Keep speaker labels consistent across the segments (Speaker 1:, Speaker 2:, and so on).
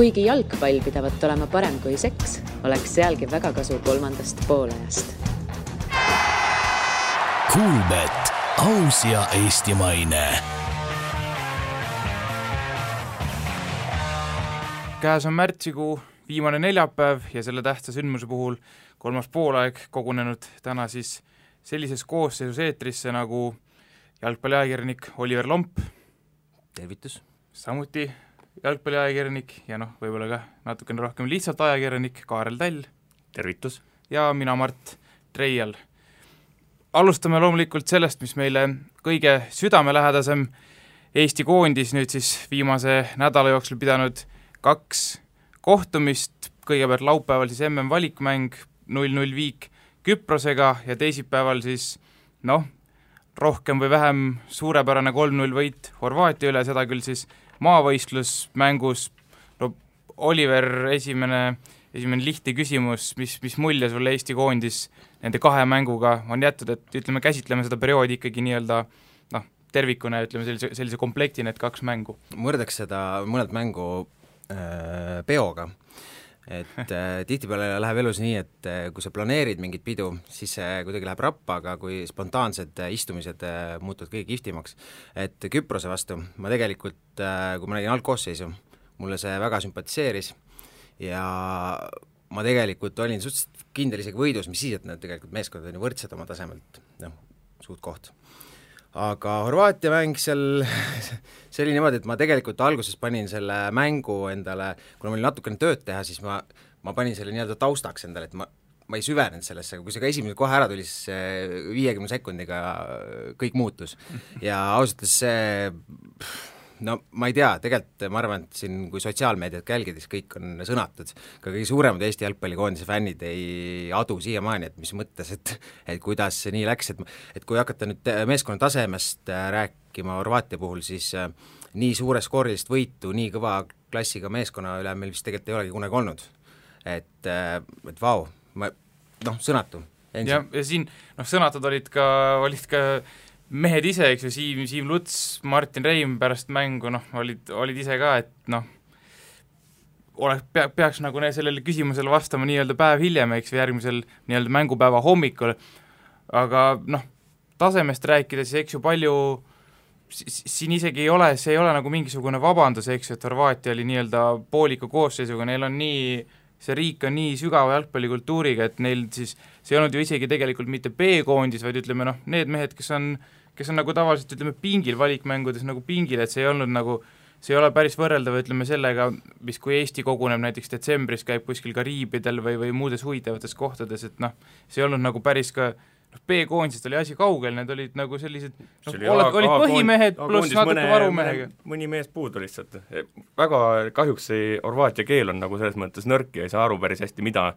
Speaker 1: Kuigi jalgpall pidavat olema parem kui seks, oleks sealgi väga kasu kolmandast poolajast.
Speaker 2: Kuulbet, aus ja eestimaine.
Speaker 3: Käes on märtsikuu viimane neljapäev ja selle tähtsa sündmuse puhul kolmas poolaeg kogunenud täna siis sellises koosseisus eetrisse nagu jalgpalliajakirjanik Oliver Lomp.
Speaker 4: Tervitus.
Speaker 3: Samuti jalgpalliajakirjanik ja võib-olla ka natukene rohkem lihtsalt ajakirjanik Kaarel Tall.
Speaker 4: Tervitus.
Speaker 3: Ja mina Mart Treial. Alustame loomulikult sellest, mis meile kõige südamelähedasem Eesti koondis nüüd siis viimase nädala jooksul pidanud 2 kohtumist, kõigepealt laupäeval siis MM-valikmäng 0-0 viik Küprosega ja teisipäeval siis rohkem või vähem suurepärane 3-0 võit Horvaatia üle, seda küll siis maavõistlusmängus. Oliver, esimene lihtne küsimus, mis mulje sulle Eesti koondis nende 2 mänguga on jättud, et käsitleme seda perioodi ikkagi nii-öelda tervikuna, sellise komplekti need 2 mängu.
Speaker 4: Mõrdaks seda mõned mängu peoga, et tihtipeale läheb elus nii, et kui sa planeerid mingit pidu, siis see kuidagi läheb rappa, aga kui spontaansed istumised muutuvad kõige kihvtimaks. Et Küprose vastu ma tegelikult, kui ma nägin algkoosseisu, mulle see väga sümpatiseeris ja ma tegelikult olin suhteliselt kindel isegi võidus, mis siis, et need tegelikult meeskond on ju võrdsed oma tasemelt, suht koht. Aga Horvaatia mäng seal, see oli niimoodi, et ma tegelikult alguses panin selle mängu endale, kuna ma olin natukene tööd teha, siis ma panin selle nii-öelda taustaks endale, et ma ei süvenenud sellesse, aga kui see ka esimene kohe ära tuli, siis 50 sekundiga kõik muutus. Ja ausalt see, ma ei tea, tegelikult ma arvan, et siin kui sotsiaalmeediat jälgides kõik on sõnatud, ka kõige suuremad Eesti jalgpallikoondise fännid ei adu siiamaani, et mis mõttes, et kuidas see nii läks, et kui hakata nüüd meeskonna tasemest rääkima Horvaatia puhul, siis nii suure skoorilist võitu, nii kõva klassiga meeskonna üle meil vist tegelikult ei olegi kunagi olnud. Et vau, sõnatu.
Speaker 3: Ja siin sõnatud olid ka mehed ise, eks ju, Siim Luts, Martin Reim pärast mängu, olid ise ka, et peaks sellele küsimusele vastama nii-öelda päev hiljem, eks, järgmisel nii-öelda mängupäeva hommikul, aga tasemest rääkides, eks ju, palju siin isegi ei ole, see ei ole nagu mingisugune vabandus, eks ju, et Horvaatia oli nii-öelda pooliku koosseisuga, neil on see riik on nii sügava jalgpallikultuuriga, et neil siis, see ei olnud ju isegi tegelikult mitte B-koondis, vaid need mehed, kes on nagu tavaliselt, pingil valikmängudes nagu pingil, et see ei ole päris võrreldav, sellega, mis kui Eesti koguneb näiteks detsembris, käib kuskil Kariibidel või muudes huvitavates kohtades, et see ei olnud nagu päris ka B-koondisest oli asi kaugel, need olid nagu sellised olid põhimehed pluss natuke varumehega.
Speaker 5: Mõni mees puudu lihtsalt. Väga kahjuks see Horvaatia keel on nagu selles mõttes nõrk ja ei saa aru päris hästi, mida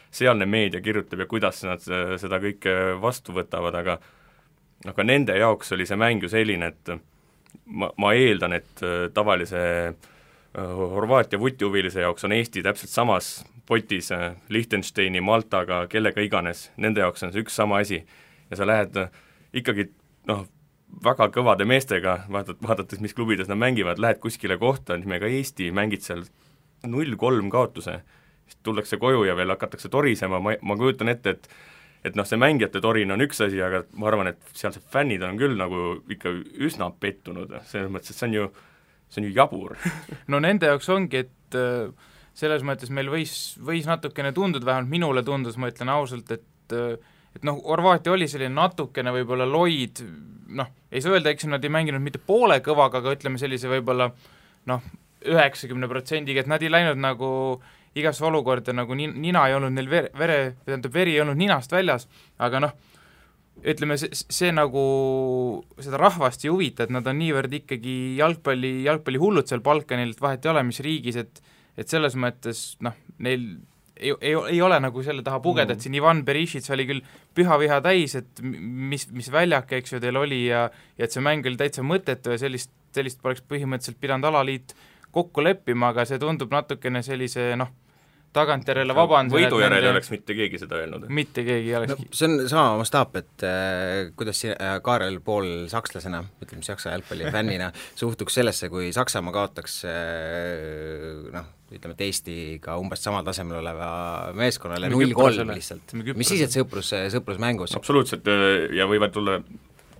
Speaker 5: sealne meedia kirjutab ja kuidas nad seda kõike vastu võtavad, aga nende jaoks oli see mäng ju selline, et ma eeldan, et tavalise Horvaatia vutihuvilise jaoks on Eesti täpselt samas potis Liechtensteini, Maltaga, kellega iganes, nende jaoks on see üks sama asi ja sa lähed ikkagi väga kõvade meestega, vaadates, mis klubides nad mängivad, lähed kuskile kohta, nimega Eesti, mängid seal 0-3 kaotuse, siis tullakse koju ja veel hakatakse torisema, ma kujutan ette, et see mängijate torin on üks asi, aga ma arvan, et sealsed fännid on küll nagu ikka üsna pettunud, selles mõttes, et see on ju jabur.
Speaker 3: Nende jaoks ongi, et selles mõttes meil võis natukene tunduda, vähemalt minule tundus, ma ütlen ausalt, et Horvaatia oli selline natukene võib-olla loid, ei saa öelda, eks nad ei mänginud mitte poole kõvaga, aga ütleme sellise võib-olla 90%, et nad ei läinud nagu igasse olukorda, nagu nina ei olnud neil veri ei olnud ninast väljas, aga ütleme, see nagu seda rahvast ei huvita, et nad on niivõrd ikkagi jalgpalli hullud seal Balkanil, et vahet ei ole, mis riigis, et selles mõttes, neil ei ole nagu selle taha pugeda, et siin Ivan Berishits oli küll püha viha täis, et mis väljak, eks ju, teil oli ja et see mäng oli täitsa mõttetu ja sellist poleks põhimõtteliselt pidanud alaliit kokku leppima, aga see tundub natukene sellise, tagantjärele vabandan.
Speaker 5: Võidu järel ei oleks mitte keegi seda öelnud.
Speaker 3: Mitte keegi ei olekski.
Speaker 4: See on sama mastaap, et kuidas Kaarel Pool sakslasena, ütleme Saksa jalgpalli fännina, suhtuks sellesse, kui Saksamaa kaotaks ütleme, et Eestiga umbes samal tasemel oleva meeskonnale 0-3 lihtsalt. Mis siis, et sõprusmängus?
Speaker 5: Absoluutselt, ja võivad tulla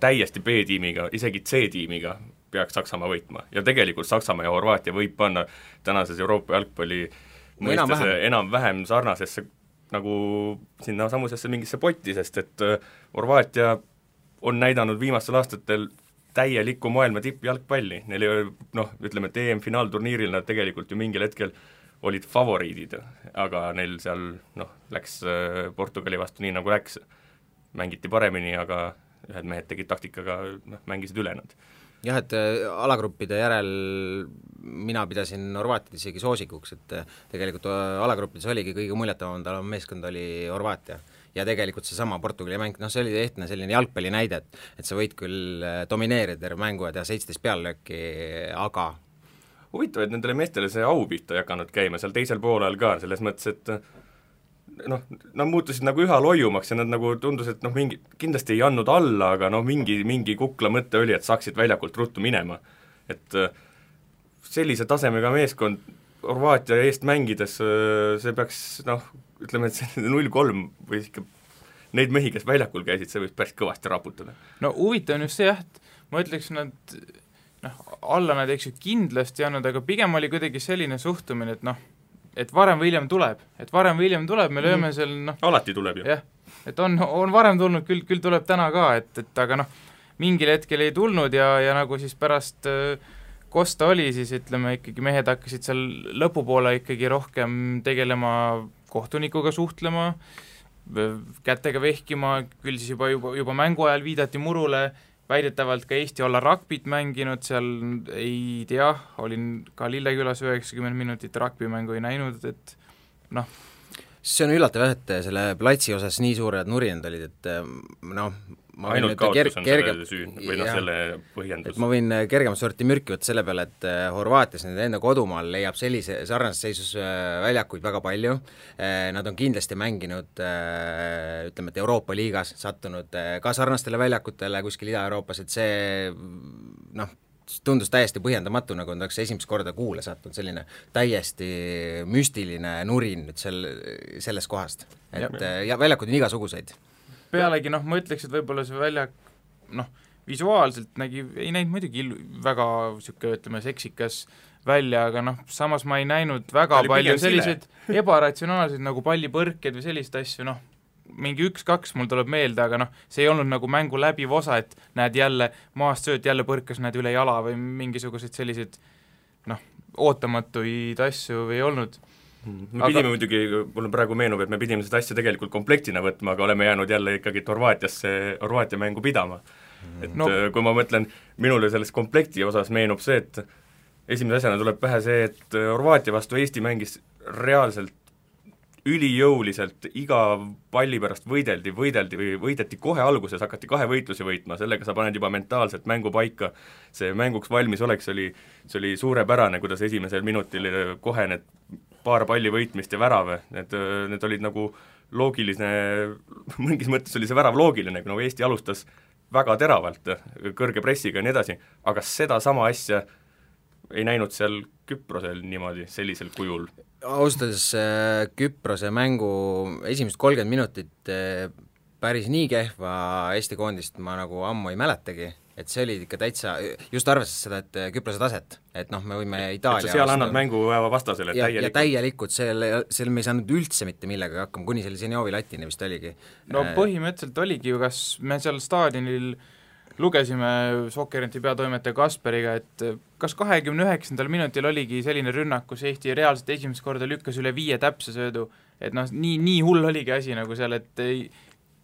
Speaker 5: täiesti B-tiimiga, isegi C-tiimiga peaks Saksamaa võitma. Ja tegelikult Saksamaa ja Horvaatia võib panna tänases Euroopa jalgpalli mõistes enam-vähem sarnasesse nagu sinna samusesse mingisse potti, sest et Horvaatia on näidanud viimastel aastatel täielikku maailma tippjalgpalli. Neil ei ole, ütleme, et EM-finaalturniiril nad tegelikult ju mingil hetkel olid favoriidid, aga neil seal läks Portugali vastu nii nagu läks. Mängiti paremini, aga ühed mehed tegid taktikaga, mängisid üle nad.
Speaker 4: Jah, et alagruppide järel mina pidasin Horvaatiat isegi soosikuks, et tegelikult alagruppides oligi kõige muljetavam meeskond oli Horvaatia. Ja tegelikult see sama Portugali mäng, see oli ehtne selline jalgpalli näide, et sa võid küll domineerida terve mängu ja teha 17 peallööki, aga
Speaker 5: huvitav, et nendele meestele see au pihta ei hakanud käima seal teisel poolel ka, selles mõttes, et nad muutusid nagu üha loiumaks ja nad nagu tundus, et mingi, kindlasti ei andnud alla, aga mingi kukla mõte oli, et saaksid väljakult ruttu minema. Et sellise tasemega meeskond Horvaatia eest mängides, see peaks, ütleme, et see 0-3 või ikka neid mehi, kes väljakul käisid, see võiks päris kõvasti raputada.
Speaker 3: No huvitav on just see, et ma ütleks, nad alla nad eks ju kindlasti andnud, aga pigem oli kuidagi selline suhtumine, et varem või hiljem tuleb, me lööme seal
Speaker 5: alati tuleb ju.
Speaker 3: Jah, et on varem tulnud, küll tuleb täna ka, et aga mingil hetkel ei tulnud ja nagu siis pärast Kosta oli, siis ütleme ikkagi mehed hakkasid seal lõpupoole ikkagi rohkem tegelema kohtunikuga suhtlema, kätega vehkima, küll siis juba mängu ajal viidati murule, väidetavalt ka Eesti olla ragbit mänginud, seal ei tea, olin ka Lillekülas 90 minutit ragbimängu ei näinud, et
Speaker 4: see on üllatav, et selle platsi osas nii suured nurinad olid, et
Speaker 5: ainult kaotus on selle süün või selle põhjendus.
Speaker 4: Ma võin kergemat sorti mürki võtta selle peale, et Horvaatias nende enda kodumaal leiab sellise sarnases seisus väljakuid väga palju, nad on kindlasti mänginud, ütleme, et Euroopa liigas sattunud ka sarnastele väljakutele kuskil Ida-Euroopas, et see tundus täiesti põhjendamatu, nagu on esimest korda kuule sattunud selline täiesti müstiline nurin nüüd sellest kohast, et ja väljakud on igasuguseid.
Speaker 3: Pealegi ma ütleks, et võib-olla see väljak visuaalselt ei näinud muidugi väga ütleme seksikas välja, aga samas ma ei näinud väga palju selliseid ebaratsionaalseid nagu pallipõrked või sellist asju, mingi 1-2 mul tuleb meelde, aga see ei olnud nagu mängu läbiv osa, et näed jälle maast sööt, jälle põrkas näed üle jala või mingisuguseid selliseid ootamatuid asju ei olnud.
Speaker 5: Me pidime muidugi, mulle praegu meenub, et me pidime seda asja tegelikult komplektina võtma, aga oleme jäänud jälle ikkagi Horvaatia mängu pidama. Et kui ma mõtlen, minule selles komplekti osas meenub see, et esimese asjana tuleb pähe see, et Horvaatia vastu Eesti mängis reaalselt ülijõuliselt, iga palli pärast võideti kohe alguses, hakati 2 võitlusi võitma, sellega sa paned juba mentaalselt mängu paika, see mänguks valmis oleks, see oli suurepärane, kuidas esimesel minutil kohe need paar palli võitmist ja värav, need olid nagu loogiline, mingis mõttes oli see värav loogiline, nagu Eesti alustas väga teravalt, kõrge pressiga ja nii edasi, aga seda sama asja ei näinud seal Küprosel niimoodi, sellisel kujul.
Speaker 4: Austades Küprose mängu esimest 30 minutit päris nii kehva Eesti koondist ma nagu ammu ei mäletagi, et see oli ikka täitsa, just arvestades seda, et Küprose taset, et me võime Itaalia
Speaker 5: et sa seal annad mängu vastasele
Speaker 4: täielikult. Ja täielikult, seal me ei saanud üldse mitte millega hakkama, kuni selle Zenjovi latini vist oligi.
Speaker 3: Põhimõtteliselt oligi ju, kas me seal staadionil lugesime Sokkerinti peatoimetaja Kasperiga, et kas 29. minutil oligi selline rünnak, kus Eesti reaalselt esimest korda lükkas üle 5 täpse söödu, et nii hull oligi asi nagu seal, et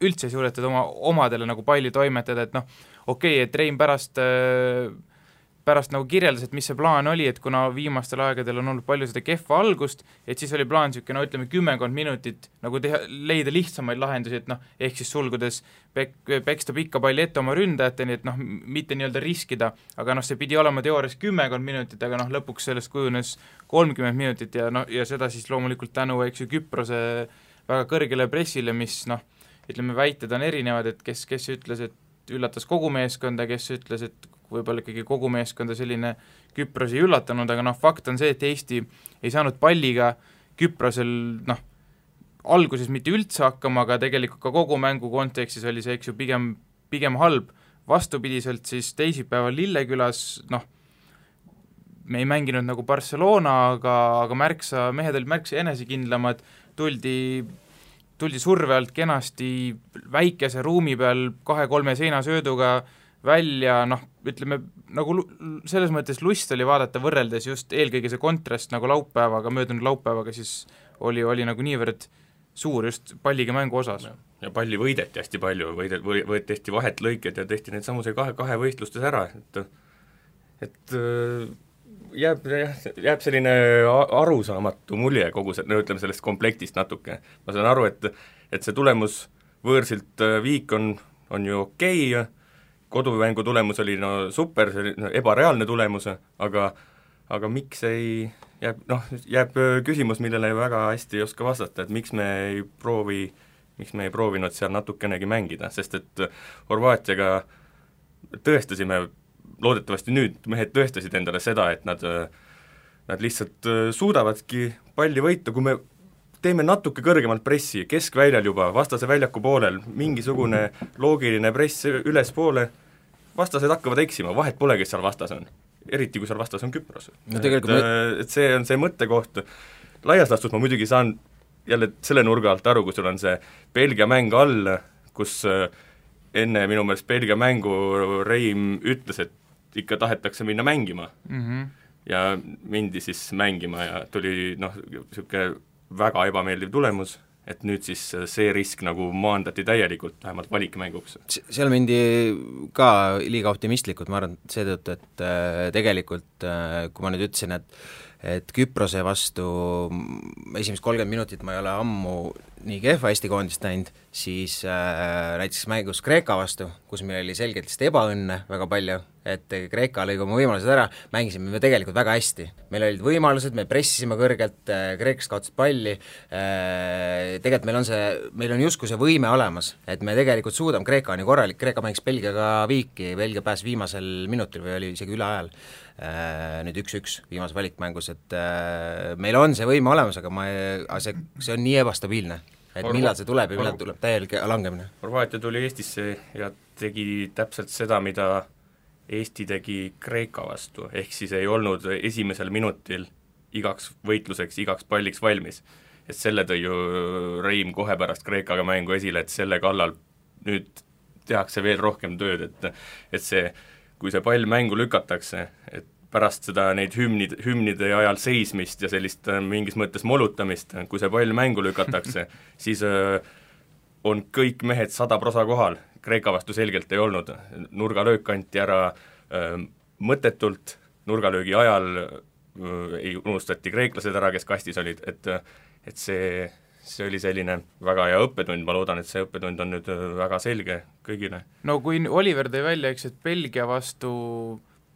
Speaker 3: üldse ei suudetud omadele nagu palli toimetada, et okei, et Rein pärast pärast nagu kirjeldas, et mis see plaan oli, et kuna viimastel aegadel on olnud palju seda kehva algust, et siis oli plaan niisugune, no ütleme 10 minutit nagu leida lihtsamaid lahendusi, et noh, ehk siis sulgudes peksta pikka palli ette oma ründajateni, et noh, mitte nii-öelda riskida, aga noh, see pidi olema teoorias 10 minutit, aga noh, lõpuks sellest kujunes 30 minutit ja noh, ja seda siis loomulikult tänu, eks ju, Küprose väga kõrgele pressile, mis noh, ütleme, väited on erinevad, et kes ütles, et üllatas kogu meeskonda, kes ütles, et võib-olla ikkagi kogu meeskonda selline Küpros ei üllatanud, aga noh, fakt on see, et Eesti ei saanud palliga Küprosel noh, alguses mitte üldse hakkama, aga tegelikult ka kogu mängu kontekstis oli see, eks ju, pigem halb. Vastupidiselt siis teisipäeval Lillekülas, noh, me ei mänginud nagu Barcelona, aga mehed olid märksa enesekindlamad, tuldi surve alt kenasti väikese ruumi peal 2-3 seinasööduga välja, noh, ütleme, nagu selles mõttes lust oli vaadata võrreldes just eelkõige see kontrast nagu möödunud laupäevaga, siis oli nagu niivõrd suur just palliga mängu osas.
Speaker 5: Ja palli võideti hästi palju, tehti vahet lõiked ja tehti need samuse kahe võistlustes ära, et jääb selline arusaamatu mulje kogu ütleme sellest komplektist natuke. Ma saan aru, et see tulemus võõrsilt Viik on ju okei, kodumängu tulemus oli no super, see oli ebareaalne tulemus, aga miks jääb küsimus, millele väga hästi ei oska vastata, et miks me ei proovinud seal natukenegi mängida, sest et Horvaatiaga tõestasime, loodetavasti nüüd mehed tõestasid endale seda, et nad lihtsalt suudavadki palli võita, kui me teeme natuke kõrgemalt pressi, keskväljal juba, vastase väljaku poolel, mingisugune loogiline press ülespoole, vastased hakkavad eksima, vahet pole, kes seal vastas on. Eriti, kui seal vastas on Küpros. No, et see on see mõttekoht. Laias laastus ma muidugi saan jälle selle nurga alt aru, kui sul on see Belgia mäng all, kus enne minu meelest Belgia mängu Reim ütles, et ikka tahetakse minna mängima. Ja mindi siis mängima ja tuli niisugune väga ebameeldiv tulemus, et nüüd siis see risk nagu maandati täielikult, vähemalt valikmänguks.
Speaker 4: Seal mindi ka liiga optimistlikult, ma arvan seetõttu, et tegelikult kui ma nüüd ütlesin, et Küprose vastu esimest 30 minutit ma ei ole ammu nii kehva Eesti koondist näinud, siis näiteks mängus Kreeka vastu, kus meil oli selgelt ebaõnne väga palju, et Kreeka lõi oma võimalused ära, mängisime me tegelikult väga hästi. Meil olid võimalused, me pressisime kõrgelt, Kreekast kaotasid palli, tegelikult meil on justkui see võime olemas, et me tegelikult suudame, Kreeka on ju korralik, Kreeka mängis Belgiaga Viiki, Belgia pääs viimasel minutil või oli isegi üle ajal, nüüd 1-1 viimase valikmängus, et meil on see võime olemas, aga see on nii ebastabiilne, et millal see tuleb ja millal tuleb täielik langemine.
Speaker 5: Horvaatia tuli Eestisse ja tegi täpselt seda, mida Eesti tegi Kreeka vastu, ehk siis ei olnud esimesel minutil igaks võitluseks, igaks palliks valmis. Et selle tõi ju Reim kohe pärast Kreekaga mängu esile, et selle kallal nüüd tehakse veel rohkem tööd, et see, kui see pall mängu lükatakse, et pärast seda neid hümnide ajal seismist ja sellist mingis mõttes molutamist, kui see pall mängu lükatakse, siis on kõik mehed 100% kohal, Kreeka vastu selgelt ei olnud, nurgalöök anti ära mõttetult, nurgalöögi ajal ei unustati kreeklased ära, kes kastis olid, et see oli selline väga hea õppetund, ma loodan, et see õppetund on nüüd väga selge kõigile.
Speaker 3: No kui Oliver tõi välja, eks, et Belgia vastu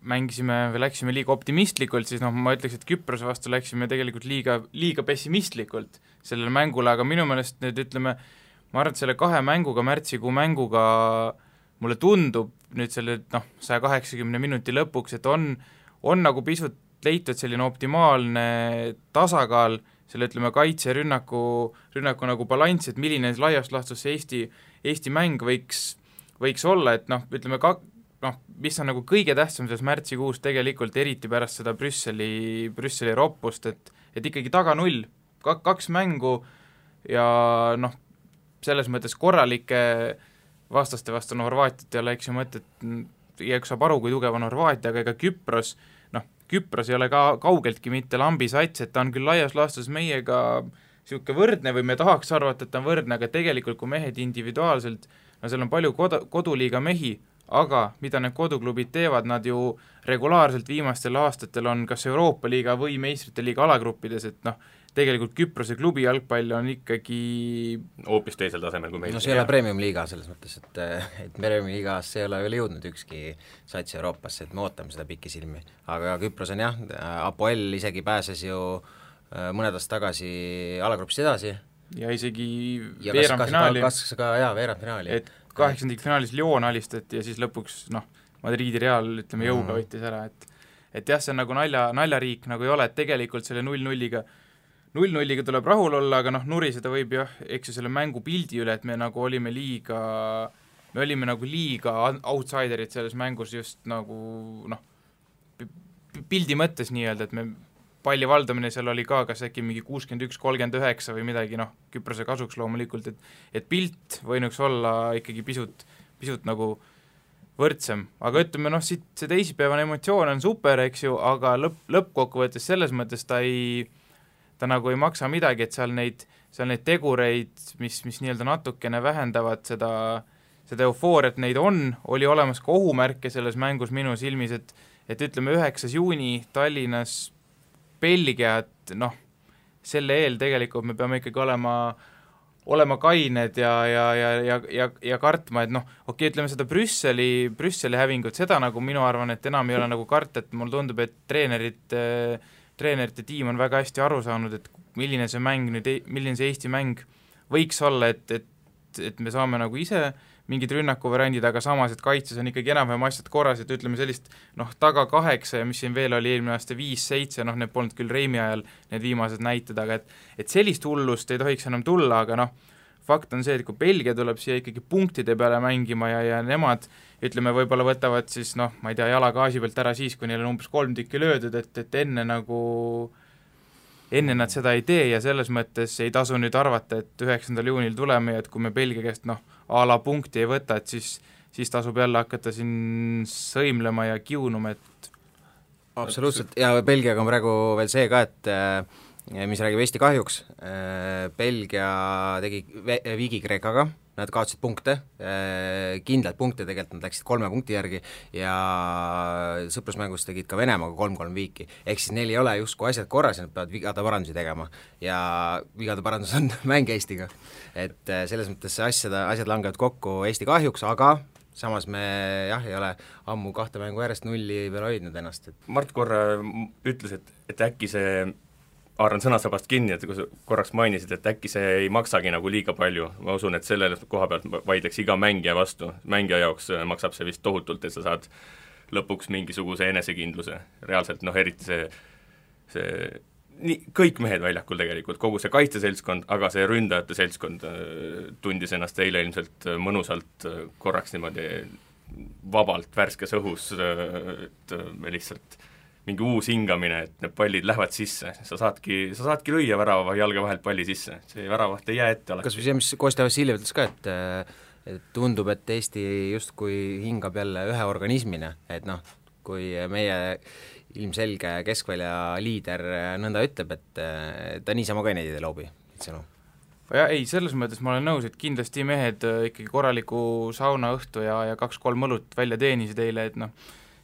Speaker 3: mängisime või läksime liiga optimistlikult, siis ma ütleks, et Küprose vastu läksime tegelikult liiga pessimistlikult sellele mängule, aga minu meelest nüüd ütleme, ma arvan, et selle 2 mänguga, märtsikuu mänguga mulle tundub nüüd selle 180 minuti lõpuks, et on nagu pisut leitud selline optimaalne tasakaal selle, ütleme, kaitse-rünnaku nagu balanss, et milline laiast laastus Eesti mäng võiks olla, et ütleme, mis on nagu kõige tähtsam selles märtsikuus tegelikult, eriti pärast seda Brüsseli roppust, et ikkagi taga 0, 2 mängu ja selles mõttes korralike vastaste vastu Horvaatiat ei ole, eks ju mõtet, igaüks saab aru, kui tugev on Horvaatia, aga ega Küpros ei ole ka kaugeltki mitte lambisats, et ta on küll laias laastus meiega niisugune võrdne või me tahaks arvata, et ta on võrdne, aga tegelikult kui mehed individuaalselt, seal on palju koduliiga mehi, aga mida need koduklubid teevad, nad ju regulaarselt viimastel aastatel on kas Euroopa liiga või meistrite liiga alagruppides, et noh, tegelikult Küprose klubi jalgpall on ikkagi
Speaker 5: hoopis teisel tasemel kui meil.
Speaker 4: No see ei ole premium-liiga selles mõttes, et premium-liigas ei ole veel jõudnud ükski sats Euroopasse, et me ootame seda pikisilmi. Aga Küpros on jah, Apoel isegi pääses ju mõned aastad tagasi alagrupis edasi.
Speaker 3: Ja isegi veerandfinaali.
Speaker 4: Kas ka veerandfinaali.
Speaker 3: Et 8. finaalis Lyon alistati ja siis lõpuks Madridi Real, ütleme, jõuga võttis ära, et jah, see on nagu naljariik nagu ei ole, et tegelikult selle 0-0-iga tuleb rahul olla, aga nuriseda võib jah, eks ju selle mängu pildi üle, et me olime nagu liiga outsiderid selles mängus just nagu pildi mõttes nii-öelda, et me palli valdamine seal oli ka kas äkki mingi 61-39 või midagi, Küprose kasuks loomulikult, et pilt võinuks olla ikkagi pisut nagu võrdsem, aga ütleme siit see teisipäevane emotsioon on super, eks ju, aga lõppkokkuvõttes selles mõttes ta nagu ei maksa midagi, et seal neid tegureid, mis nii-öelda natukene vähendavad seda eufooriat, neid oli olemas ka ohumärke selles mängus minu silmis, et ütleme 9. juuni Tallinnas Belgia, et selle eel tegelikult me peame ikkagi olema kained ja kartma, et okei, ütleme seda Brüsseli hävingut, seda nagu minu arvan, et enam ei ole nagu karta, et mulle tundub, et treenerite tiim on väga hästi aru saanud, et milline see Eesti mäng võiks olla, et me saame nagu ise mingid rünnakuvariandid, aga samas, et kaitses on ikkagi enam-vähem asjad korras, et ütleme sellist taga 8 ja mis siin veel oli eelmine aasta 5-7, need polnud küll Reimi ajal need viimased näited, aga et sellist hullust ei tohiks enam tulla, aga fakt on see, et kui Belgia tuleb siia ikkagi punktide peale mängima ja nemad, ütleme, võib-olla võtavad siis, ma ei tea, jala gaasi pealt ära siis, kui neil on umbes 3 tükki löödud, et enne nad seda ei tee ja selles mõttes ei tasu nüüd arvata, et 9. juunil tuleme ja et kui me Belgia käest a la punkti ei võta, et siis tasub jälle hakata siin sõimlema ja kiunuma, et
Speaker 4: absoluutselt, ja Belgiaga on praegu veel see ka, et mis räägib Eesti kahjuks, Belgia tegi viigi Kreekaga, nad kaotasid punkte, kindlalt punkte tegelikult, nad läksid 3 punkti järgi ja sõprusmängus tegid ka Venemaaga 3-3 viiki, ehk siis neil ei ole justkui asjad korras ja nad peavad vigade parandusi tegema ja vigade parandus on mäng Eestiga, et selles mõttes asjad langevad kokku Eesti kahjuks, aga samas me jah, ei ole ammu 2 mängu järjest 0 peal hoidnud ennast.
Speaker 5: Mart korra ütles, et äkki see haaran sõnasabast kinni, et kui sa korraks mainisid, et äkki see ei maksagi nagu liiga palju, ma usun, et selle koha pealt vaidleks iga mängija vastu, mängija jaoks maksab see vist tohutult, et sa saad lõpuks mingisuguse enesekindluse, reaalselt eriti see kõik mehed väljakul tegelikult, kogu see kaitseseltskond, aga see ründajate seltskond tundis ennast eile ilmselt mõnusalt korraks niimoodi vabalt värskes õhus, et me lihtsalt mingi uus hingamine, et need pallid lähevad sisse, sa saadki lüüa värava jalge vahelt palli sisse, see väravaht ei jää ette alati.
Speaker 4: Kas või see, mis Kostja Vassiljev ütles ka, et tundub, et Eesti justkui hingab jälle ühe organismina, et kui meie ilmselge keskvälja liider nõnda ütleb, et ta niisama ka neid ei loobi, sõnu.
Speaker 3: Ja ei, selles mõttes ma olen nõus, et kindlasti mehed ikkagi korraliku saunaõhtu ja 2-3 õlut välja teenisid eile, et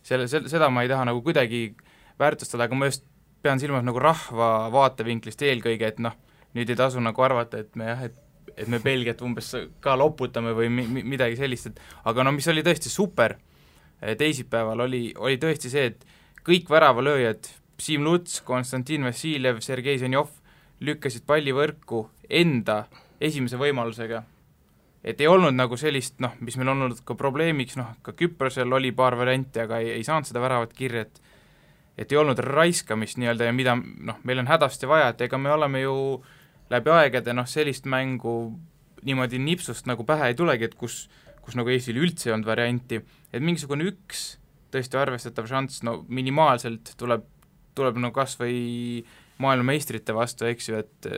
Speaker 3: seda ma ei taha nagu kuidagi väärtustada, aga ma just pean silmas nagu rahva vaatevinklist eelkõige, et nüüd ei tasu nagu arvata, et me Belgiat umbes ka loputame või midagi sellist, et aga mis oli tõesti super teisipäeval, oli tõesti see, et kõik väravalööjad, Siim Luts, Konstantin Vassiljev, Sergei Zenjov lükkasid palli võrku enda esimese võimalusega. Et ei olnud nagu sellist, mis meil on olnud ka probleemiks, ka Küprosel oli paar varianti, aga ei saanud seda väravat kirja, et ei olnud raiskamist nii-öelda ja mida meil on hädasti vaja, et ega me oleme ju läbi aegade sellist mängu niimoodi nipsust nagu pähe ei tulegi, et kus nagu Eestil üldse ei olnud varianti, et mingisugune üks tõesti arvestatav šanss, minimaalselt tuleb nagu kas või maailmameistrite vastu, eks ju, et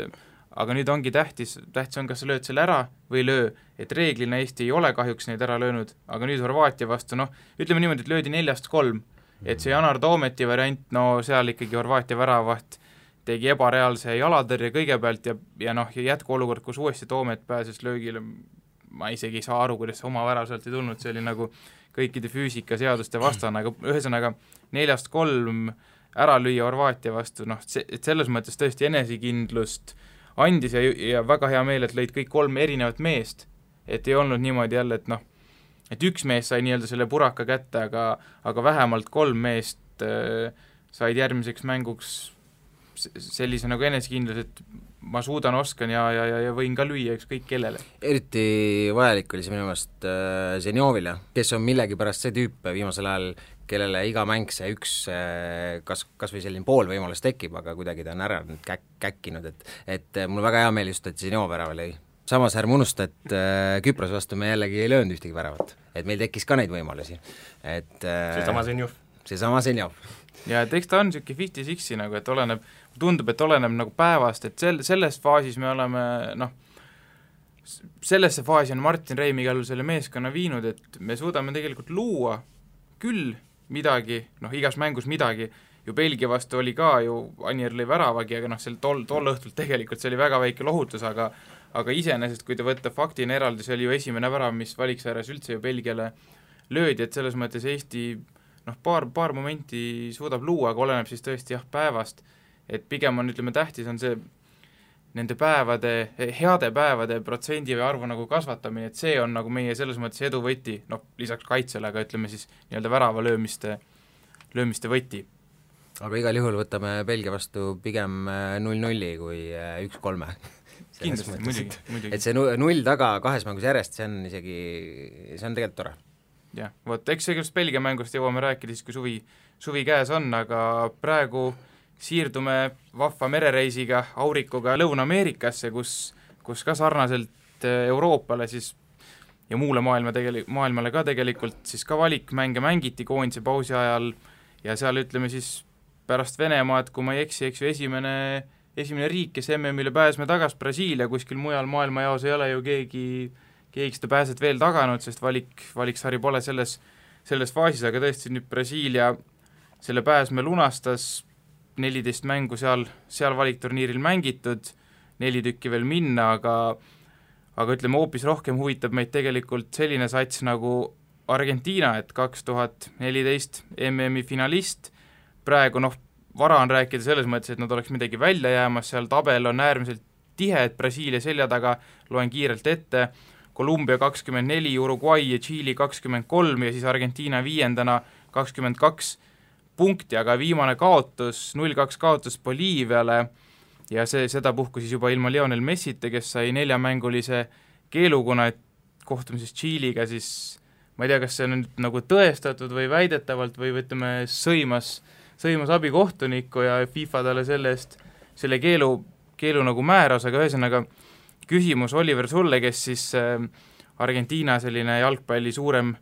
Speaker 3: aga nüüd ongi tähtis on, kas sa lööd selle ära või löö, et reeglina Eesti ei ole kahjuks neid ära löönud, aga nüüd Horvaatia vastu, ütleme niimoodi, et löödi 4-3, et see Janar Toometi variant, seal ikkagi Horvaatia väravaht tegi ebareaalse jalatõrje kõigepealt ja jätkuolukord, kus uuesti Toomet pääses löögile, ma isegi ei saa aru, kuidas see oma värav sealt ei tulnud, see oli nagu kõikide füüsikaseaduste vastane, aga ühesõnaga 4-3 ära lüüa Horvaatia vastu, noh, et selles mõttes tõesti enesekindlust andis ja väga hea meel, et lõid kõik 3 erinevat meest, et ei olnud niimoodi jälle, et noh, et üks mees sai nii-öelda selle puraka kätte, aga vähemalt 3 meest said järgmiseks mänguks sellise nagu enesekindlus, et ma suudan, oskan ja võin ka lüüa ükskõik kellele.
Speaker 4: Eriti vajalik oli see minu meelest Zenjovile, kes on millegipärast see tüüp viimasel ajal, kellele iga mäng see üks kas või selline pool võimalus tekib, aga kuidagi ta on ära käkkinud, et mul väga hea meel just, et Zenjov värava lõi. Samas ärme unusta, et Küprose vastu me jällegi ei löönud ühtegi väravat, et meil tekkis ka neid võimalusi. Seesama Zenjov.
Speaker 3: Ja et eks ta on niisugune 50-60 nagu, et tundub, et oleneb nagu päevast, et selles faasis me oleme, noh, sellesse faasi on Martin Reim igal juhul selle meeskonna viinud, et me suudame tegelikult luua küll midagi, noh, igas mängus midagi, ju Belgia vastu oli ka ju, Anier lõi väravagi, aga noh, tol õhtult tegelikult see oli väga väike lohutus, aga iseenesest, kui te võtta faktina eraldi, see oli ju esimene värav, mis valiksääres üldse ju Belgiale löödi, et selles mõttes Eesti noh, paar momenti suudab luua, aga oleneb siis tõesti jah, päevast, et pigem on, ütleme, tähtis on see nende päevade, heade päevade protsendi või arvu nagu kasvatamine, et see on nagu meie selles mõttes edu võti, noh, lisaks kaitsele, aga ütleme siis nii-öelda värava löömiste võti.
Speaker 4: Aga igal juhul võtame Belgia vastu pigem 0-0 kui 1-3.
Speaker 3: Kindlasti, muidugi.
Speaker 4: Et see 0 taga 2 mängus järjest, see on tegelikult tore.
Speaker 3: Jah, vot, eks sellest Belgia mängust jõuame rääkida siis, kui suvi käes on, aga praegu siirdume vahva merereisiga Aurikuga Lõuna-Ameerikasse, kus ka sarnaselt Euroopale siis ja muule maailmale ka tegelikult siis ka valikmänge mängiti koondise pausi ajal ja seal ütleme siis pärast Venemaad, kui ma ei eksi, eks ju esimene riik, kes MM-ile pääsme tagas, Brasiilia, kuskil mujal maailmajaos ei ole ju keegi seda pääset veel taganud, sest valiksari pole selles faasis, aga tõesti nüüd Brasiilia selle pääsme lunastas, 14 mängu seal valikturniiril mängitud, 4 tükki veel minna, aga ütleme, hoopis rohkem huvitab meid tegelikult selline sats nagu Argentiina, et 2014 MM-i finalist, praegu noh, vara on rääkida selles mõttes, et nad oleks midagi välja jäämas, seal tabel on äärmiselt tihe, et Brasiilia selja taga, loen kiirelt ette, Kolumbia 24, Uruguay ja Tšiili 23 ja siis Argentiina 5. 22 punkti, aga viimane kaotus, 0-2 kaotus Boliiviale ja seda puhku siis juba ilma Lionel Messita, kes sai 4-mängulise keelukuna, et kohtumises Tšiiliga siis ma ei tea, kas see on nüüd nagu tõestatud või väidetavalt või ütleme, sõimas abikohtunikku ja FIFA talle selle keelu nagu määras, aga ühesõnaga küsimus Oliver sulle, kes siis Argentiina selline jalgpalli suurem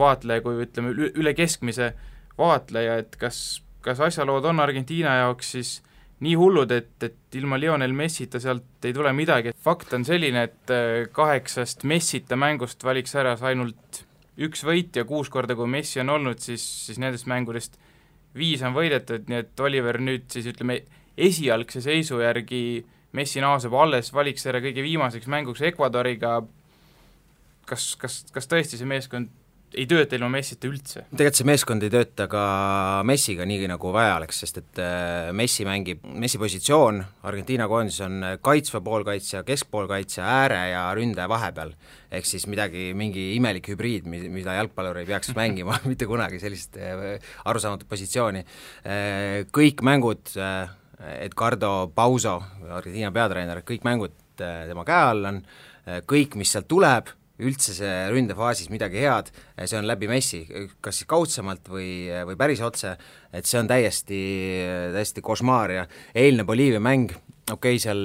Speaker 3: vaatleja, kui ütleme üle keskmise vaatleja, et kas asjalood on Argentiina jaoks siis nii hullud, et ilma Lionel Messita sealt ei tule midagi. Fakt on selline, et 8 Messita mängust valiks ära ainult 1 võit ja 6 korda, kui Messi on olnud, siis nendest mängudest 5 on võidetud, nii et Oliver nüüd siis ütleme esialgse seisu järgi Messi naaseb alles valiksääre kõige viimaseks mänguks Ecuadoriga, kas tõesti see meeskond ei tööta ilma Messita üldse?
Speaker 4: Tegelikult see meeskond ei tööta ka Messiga nii nagu vaja oleks, sest et Messi positsioon Argentiina koondis on kaitsva poolkaitsja, keskpoolkaitsja, ääre ja ründaja vahepeal. Ehk siis mingi imelik hübriid, mida jalgpallur ei peaks mängima mitte kunagi sellist arusaamatut positsiooni. Kõik mängud, Edgardo Pauso, Argentiina peatreener, kõik mängud tema käe all on, kõik, mis sealt tuleb, üldse see ründefaasis midagi head, see on läbi Messi, kas siis kaudsemalt või päris otse, et see on täiesti košmaar ja eilne Boliivia mäng, seal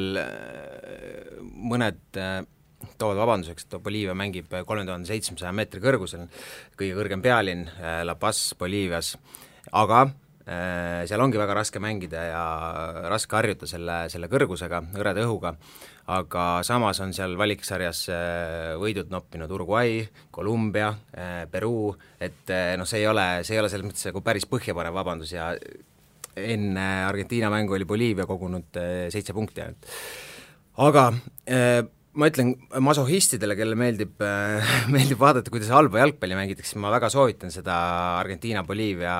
Speaker 4: mõned toovad vabanduseks, et Boliivia mängib 3700 meetri kõrgusel, kõige kõrgem pealinn La Paz Boliivias, aga seal ongi väga raske mängida ja raske harjuta selle kõrgusega, hõreda õhuga, aga samas on seal valiksarjas võidud noppinud Uruguay, Kolumbia, Peruu, et see ei ole selles mõttes nagu päris põhjapanev vabandus ja enne Argentiina mängu oli Boliivia kogunud 7 punkti. Aga ma ütlen masohhistidele, kelle meeldib vaadata, kuidas halba jalgpalli mängitakse, ma väga soovitan seda Argentiina-Boliivia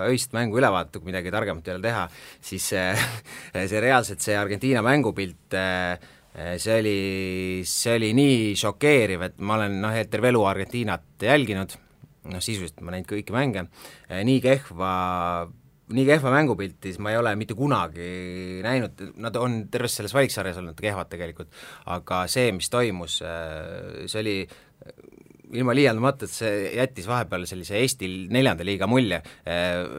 Speaker 4: öist mängu üle vaadata, kui midagi targemat ei ole teha, siis see reaalselt see Argentiina mängupilt, see oli nii šokeeriv, et ma olen terve elu Argentiinat jälginud, sisuliselt ma näinud kõiki mänge, nii kehva mängupilti, siis ma ei ole mitte kunagi näinud, nad on terves selles valiksarjas olnud kehvad tegelikult, aga see, mis toimus, see oli ilma liialdamata, et see jättis vahepeal sellise Eesti 4. liiga mulje,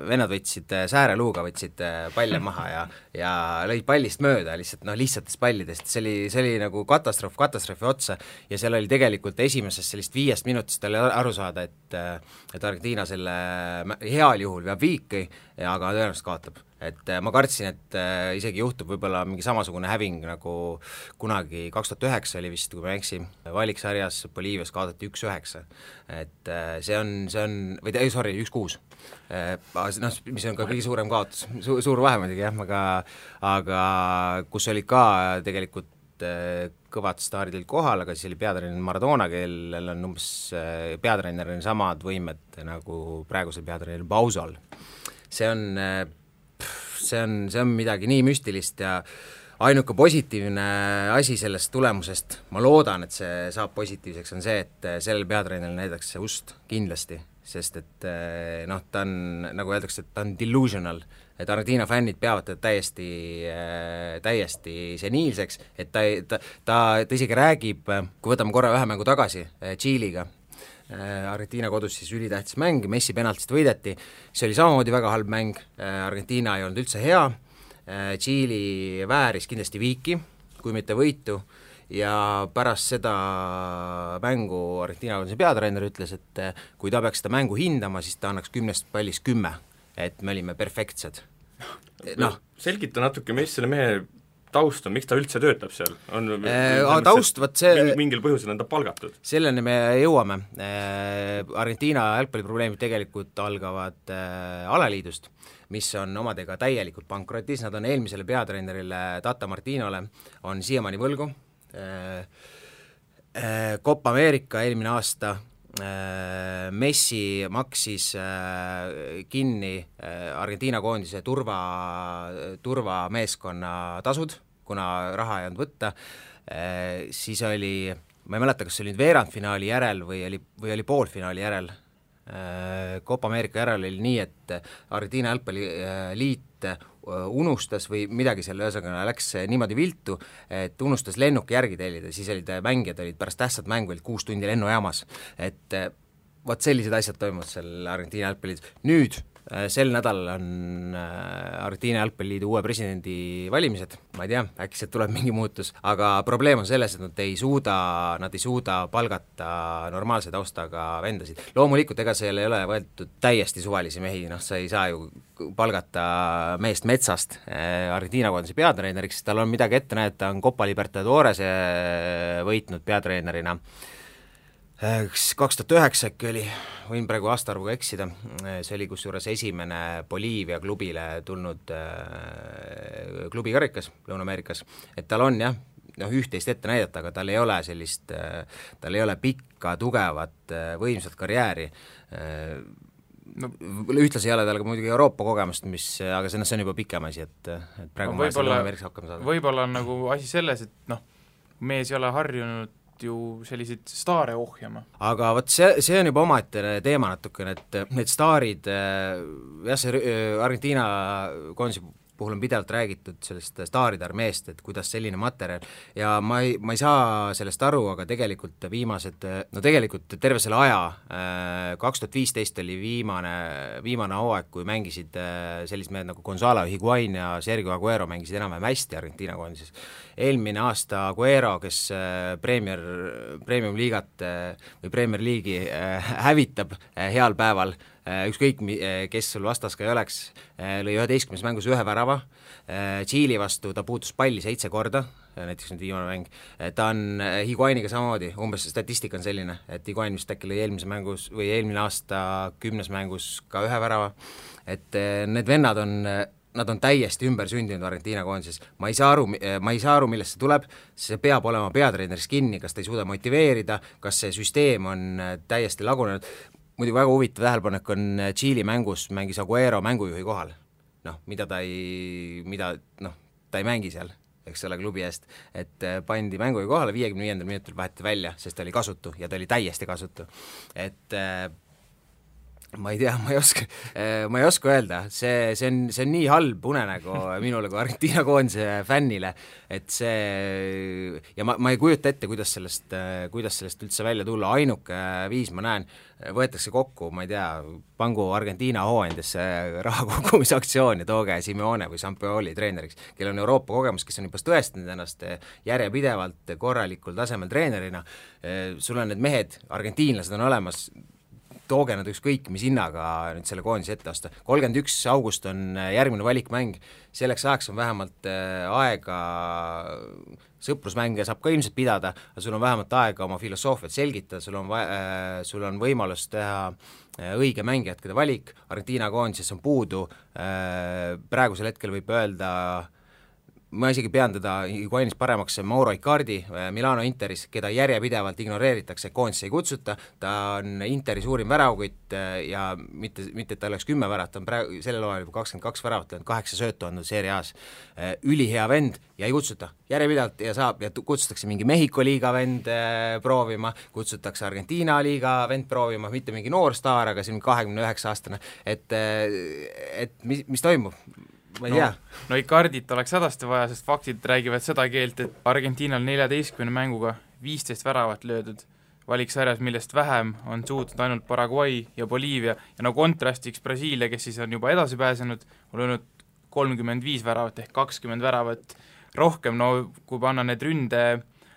Speaker 4: vennad võtsid sääreluuga, võtsid palle maha ja lõid pallist mööda lihtsatest pallidest, see oli nagu katastroofi otsa ja seal oli tegelikult esimesest sellist 5 minutist oli aru saada, et Argentiina selle heal juhul veab viiki, aga tõenäoliselt kaotab. Et ma kartsin, et isegi juhtub võib-olla mingi samasugune häving nagu kunagi 2009 oli vist, kui ma ei eksi, valiksarjas Boliivias kaotati 1-9, et see on, 1-6, mis on ka kõige suurem kaotus, suur vahe muidugi jah, aga kus oli ka tegelikult kõvad staarid olid kohal, aga siis oli peatreener Maradona, kellel on umbes peatreeneril samad võimed nagu praegusel peatreeneril Bausal. See on midagi nii müstilist ja ainuke positiivne asi sellest tulemusest, ma loodan, et see saab positiivseks, on see, et sellel peatreeneril näidatakse ust kindlasti, sest et ta on, nagu öeldakse, et ta on delusional, et Argentiina fännid peavad täiesti seniilseks, et ta isegi räägib, kui võtame korra ühe mängu tagasi Tšiiliga, Argentiina kodus siis ülitähtis mäng, Messi penaltist võideti, see oli samamoodi väga halb mäng, Argentiina ei olnud üldse hea, Tšiili vääris kindlasti viiki, kui mitte võitu, ja pärast seda mängu Argentiina koduse peatreener ütles, et kui ta peaks seda mängu hindama, siis ta annaks 10 pallist 10, et me olime perfektsed.
Speaker 5: Selgita natuke, mis selle mehe taust on, miks ta üldse töötab seal?
Speaker 4: Taust,
Speaker 5: mingil põhjusel on ta palgatud?
Speaker 4: Selleni me jõuame. Argentiina jalgpalliprobleemid tegelikult algavad alaliidust, mis on omadega täielikult pankrotis, nad on eelmisele peatreenerile Tata Martinole on siiamaani võlgu. Copa America eelmine aasta Messi maksis kinni Argentiina koondise turvameeskonna tasud, kuna raha ei olnud võtta, siis oli, ma ei mäleta, kas see oli nüüd veerandfinaali järel või oli poolfinaali järel, Copa America järel oli nii, et Argentiina jalgpalliliit unustas või midagi selle ühesõnaga läks niimoodi viltu, et unustas lennuki järgi tellida, siis mängijad olid pärast tähtsat mängu 6 tundi lennujaamas, et vot sellised asjad toimuvad seal Argentiina jalgpalliliidus. Nüüd sel nädalal on Argentiina jalgpalliliidu uue presidendi valimised, ma ei tea, äkki sealt tuleb mingi muutus, aga probleem on selles, et nad ei suuda palgata normaalse taustaga vendasid. Loomulikult, ega seal ei ole võetud täiesti suvalisi mehi, sa ei saa ju palgata meest metsast Argentiina koondise peatreeneriks, tal on midagi ette näidata, on Copa Libertadores võitnud peatreenerina 2009 äkki oli, võin praegu aastaarvuga eksida, see oli kusjuures esimene Boliivia klubile tulnud klubikarikas Lõuna-Ameerikas, et tal on jah, üht-teist ette näidata, aga tal ei ole pikka, tugevat, võimsat karjääri, ühtlasi ei ole tal ka muidugi Euroopa kogemust, aga see on juba pikem asi, et praegu ma Lõuna-Ameerikas hakkama saada.
Speaker 3: Võib-olla on nagu asi selles, et mees ei ole harjunud ju selliseid staare ohjama. Aga
Speaker 4: vot see on juba omaette teema natukene, et need staarid, see Argentiina koondise puhul on pidevalt räägitud sellest staaride armeest, et kuidas selline materjal ja ma ei saa sellest aru, aga tegelikult tegelikult terve selle aja, 2015 oli viimane hooaeg, kui mängisid sellised mehed nagu Gonzalo Higuain ja Sergio Aguero mängisid enam-vähem hästi Argentiina koondises. Eelmine aasta Aguero, kes Premium liigat või Premier League'i hävitab heal päeval, ükskõik kes sul vastas ka ei oleks, lõi 11 mängus 1 värava, Tšiili vastu ta puutus palli 7 korda, näiteks nüüd viimane mäng, ta on Higuainiga samamoodi, umbes statistika on selline, et Higuain vist äkki lõi eelmine aasta 10 mängus ka 1 värava, et need vennad on nad on täiesti ümber sündinud Argentiina koondises, ma ei saa aru, millest see tuleb, see peab olema peatreeneris kinni, kas ta ei suuda motiveerida, kas see süsteem on täiesti lagunenud, muidu väga huvitav tähelepanek on Tšiili mängus mängis Aguero mängujuhi kohal, ta ei mängi seal, eks ole, klubi eest, et pandi mängujuhi kohale, 55. minutil vaheti välja, sest ta oli kasutu ja ta oli täiesti kasutu, et ma ei tea, ma ei oska öelda, see on nii halb unenägu minule kui Argentiina koondise fännile, et see, ja ma ei kujuta ette, kuidas sellest üldse välja tulla, ainuke viis ma näen, võetakse kokku, ma ei tea, pangu Argentiina hooandesse raha kogumisaktsioon ja tooge Simeone või Sampaoli treeneriks, kellel on Euroopa kogemus, kes on juba tõestanud ennast järjepidevalt korralikul tasemel treenerina, sul on need mehed, argentiinlased on olemas, tooge nad ükskõik, mis hinnaga nüüd selle koondise ette osta. 31. august on järgmine valikmäng, selleks ajaks on vähemalt aega, sõprusmänge saab ka ilmselt pidada, aga sul on vähemalt aega oma filosoofiat selgitada, sul on võimalus teha õige mängijate valik, Argentiina koondises on puudu, praegusel hetkel võib öelda, ma isegi pean teda Higuainis paremaks Mauro Icardi Milano Interis, keda järjepidevalt ignoreeritakse, koondisse ei kutsuta, ta on Interi suurim väravkütt ja mitte, et ta oleks 10 väravat, ta on praegu sellel hooajal juba 22 väravat, 8 söötu andnud Serie A-s, ülihea vend ja ei kutsuta, järjepidevalt ja kutsutakse mingi Mehhiko liiga vend proovima, kutsutakse Argentiina liiga vend proovima, mitte mingi noor staar, aga see on 29-aastane, et mis toimub? Ma ei tea.
Speaker 3: No Icardit oleks hädasti vaja, sest faktid räägivad seda keelt, et Argentiinal 14 mänguga 15 väravat löödud valiksarjas, millest vähem on suutnud ainult Paraguay ja Boliivia ja kontrastiks Brasiilia, kes siis on juba edasi pääsenud, on löönud 35 väravat ehk 20 väravat rohkem, kui panna need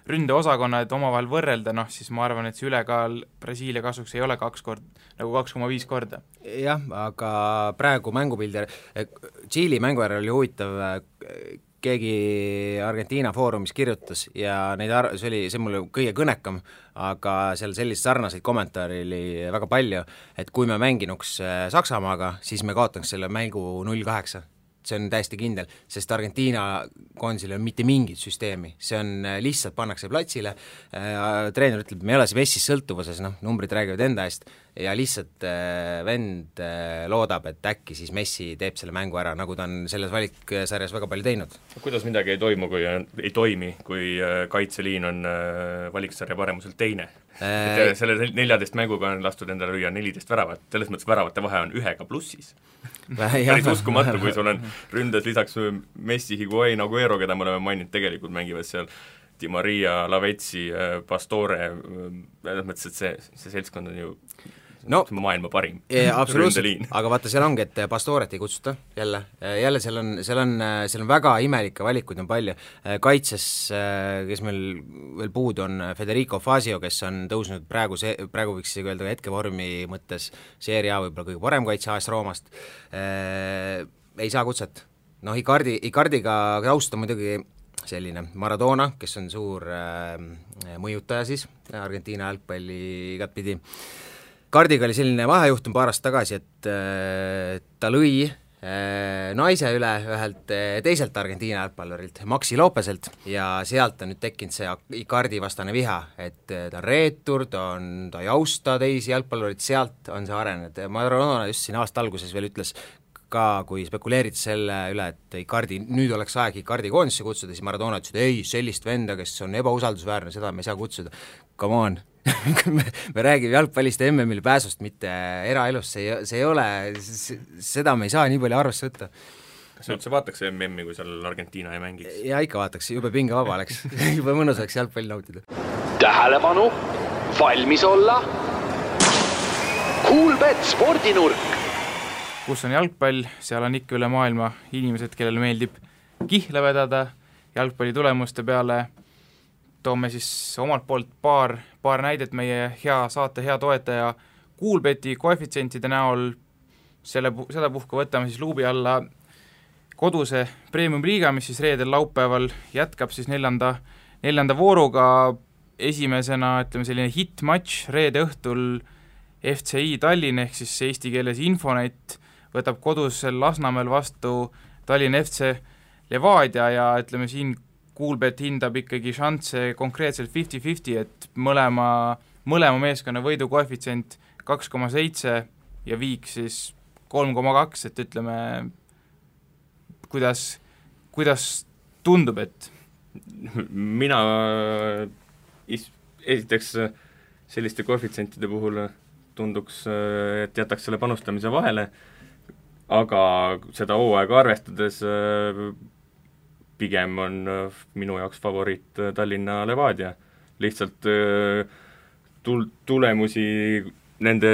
Speaker 3: ründeosakonnad omavahel võrrelda, siis ma arvan, et see ülekaal Brasiilia kasuks ei ole 2,5 korda.
Speaker 4: Jah, aga praegu mängupildi, Tšiili mänguäärel oli huvitav, keegi Argentiina foorumis kirjutas ja see mulle kõige kõnekam, aga seal sellist sarnaseid kommentaari oli väga palju, et kui me mänginuks Saksamaaga, siis me kaotaks selle mängu 0-8. See on täiesti kindel, sest Argentiina koondisel on mitte mingit süsteemi, see on lihtsalt pannakse platsile, treener ütleb, me ei ole see Messis sõltuvuses, numbrid räägivad enda eest, ja lihtsalt vend loodab, et äkki siis Messi teeb selle mängu ära, nagu ta on selles valiksarjas väga palju teinud.
Speaker 5: Kuidas midagi ei toimi, kui kaitseliin on valiksarja paremuselt teine? Selle 14 mänguga on lastud endale lüüa 14 väravat, selles mõttes väravate vahe on 1 plussis. Päris uskumatu, kui sul on ründes lisaks Messi, Higuain, Aguero, keda me oleme maininud, tegelikult mängivad seal Di Maria, Lavezzi, Pastore, mõttes, et see seltskond on ju maailma parim.
Speaker 4: Absoluutselt, aga vaata, seal ongi, et Pastoret ei kutsuta jälle seal on väga imelikke valikuid on palju, kaitses, kes meil veel puudu on, Federico Fazio, kes on tõusnud praegu võiks öelda hetkevormi mõttes Serie A võib-olla kõige parem kaitse AS Roomast, ei saa kutset. Icardiga taust on muidugi selline Maradona, kes on suur mõjutaja siis, Argentiina jalgpalli igatpidi. Icardiga oli selline vahejuhtum paar aastat tagasi, et ta lõi naise üle ühelt teiselt Argentiina jalgpallurilt, Maxi Lopeselt, ja sealt on nüüd tekkinud see Icardi vastane viha, et ta on reetur, ta ei austa teisi jalgpallurid, sealt on see arenenud. Maradona just siin aasta alguses veel ütles ka, kui spekuleeriti selle üle, et Icardi, nüüd oleks aeg Icardi koondisse kutsuda, siis Maradona ütles, et ei, sellist venda, kes on ebausaldusväärne, seda me ei saa kutsuda. Come on, me räägime jalgpallist ja MM-il pääsust, mitte eraelust, see ei ole, seda me ei saa nii palju arvesse võtta.
Speaker 5: Kas üldse vaataks MM-i, kui seal Argentiina ei mängiks?
Speaker 4: Ja ikka vaataks, jube pinge vaba oleks, jube mõnus oleks jalgpalli nautida.
Speaker 6: Tähelepanu, valmis olla, Kuulbet spordinurk.
Speaker 3: Kus on jalgpall, seal on ikka üle maailma inimesed, kellel meeldib kihla vedada jalgpalli tulemuste peale. Toome siis omalt poolt paar näidet meie saate hea toetaja Kuulbeti koefitsientide näol. Seda puhka võtame siis luubi alla koduse Premium Liiga, mis siis reedel laupäeval jätkab siis neljanda vooruga. Esimesena, ütleme selline hit-match reede õhtul FCI Tallinn ehk siis eesti keeles Infonet võtab kodus Lasnamäel vastu Tallinna FC Levadia ja ütleme siin Kuulbet hindab ikkagi šansse konkreetselt 50-50, et mõlema meeskonna võidu koefitsient 2,7 ja viik siis 3,2, et ütleme, kuidas tundub, et
Speaker 5: mina esiteks selliste koefitsientide puhul tunduks, et jätaks selle panustamise vahele, aga seda hooaega arvestades pigem on minu jaoks favoriit Tallinna Levadia. Lihtsalt tulemusi, nende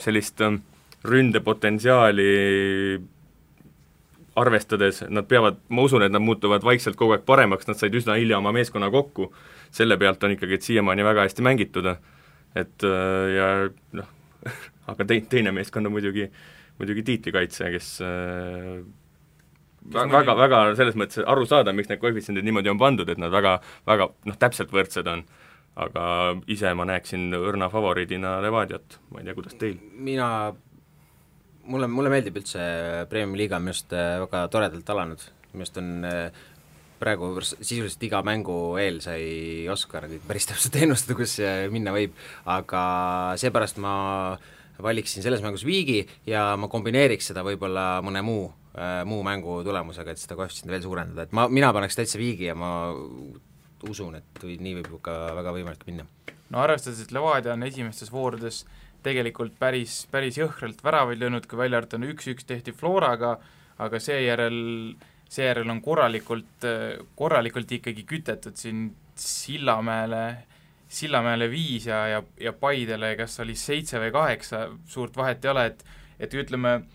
Speaker 5: sellist ründepotentsiaali arvestades, nad peavad, ma usun, et nad muutuvad vaikselt kogu aeg paremaks, nad said üsna hilja oma meeskonna kokku, selle pealt on ikkagi, et siiamaani väga hästi mängitud, et ja noh, aga teine meeskond on muidugi tiitlikaitse, kes väga selles mõttes aru saada, miks need koefitsiendid niimoodi on pandud, et nad väga täpselt võrdsed on, aga ise ma näeksin õrna favoriidina Levadiat, ma ei tea, kuidas teil?
Speaker 4: Mulle meeldib üldse Premiumi liiga, minu arust väga toredalt alanud, minu arust on praegu sisuliselt iga mängu eel sai Oskar päris täpselt ennustada, kus minna võib, aga seepärast ma valiksin selles mängus viigi ja ma kombineeriks seda võib-olla mõne muu mängu tulemusega, et seda koefitsiendi veel suurendada, et mina paneks täitsa viigi ja ma usun, et nii võib ka väga võimalik minna.
Speaker 3: No arvestades, et Levadia on esimestes voorudes tegelikult päris jõhkralt väravaid löönud, kui välja arvata 1-1 tehti Floraga, aga seejärel on korralikult ikkagi kütetud siin Sillamäele 5 ja Paidele kas oli 7 või 8, suurt vahet ei ole, et ütleme,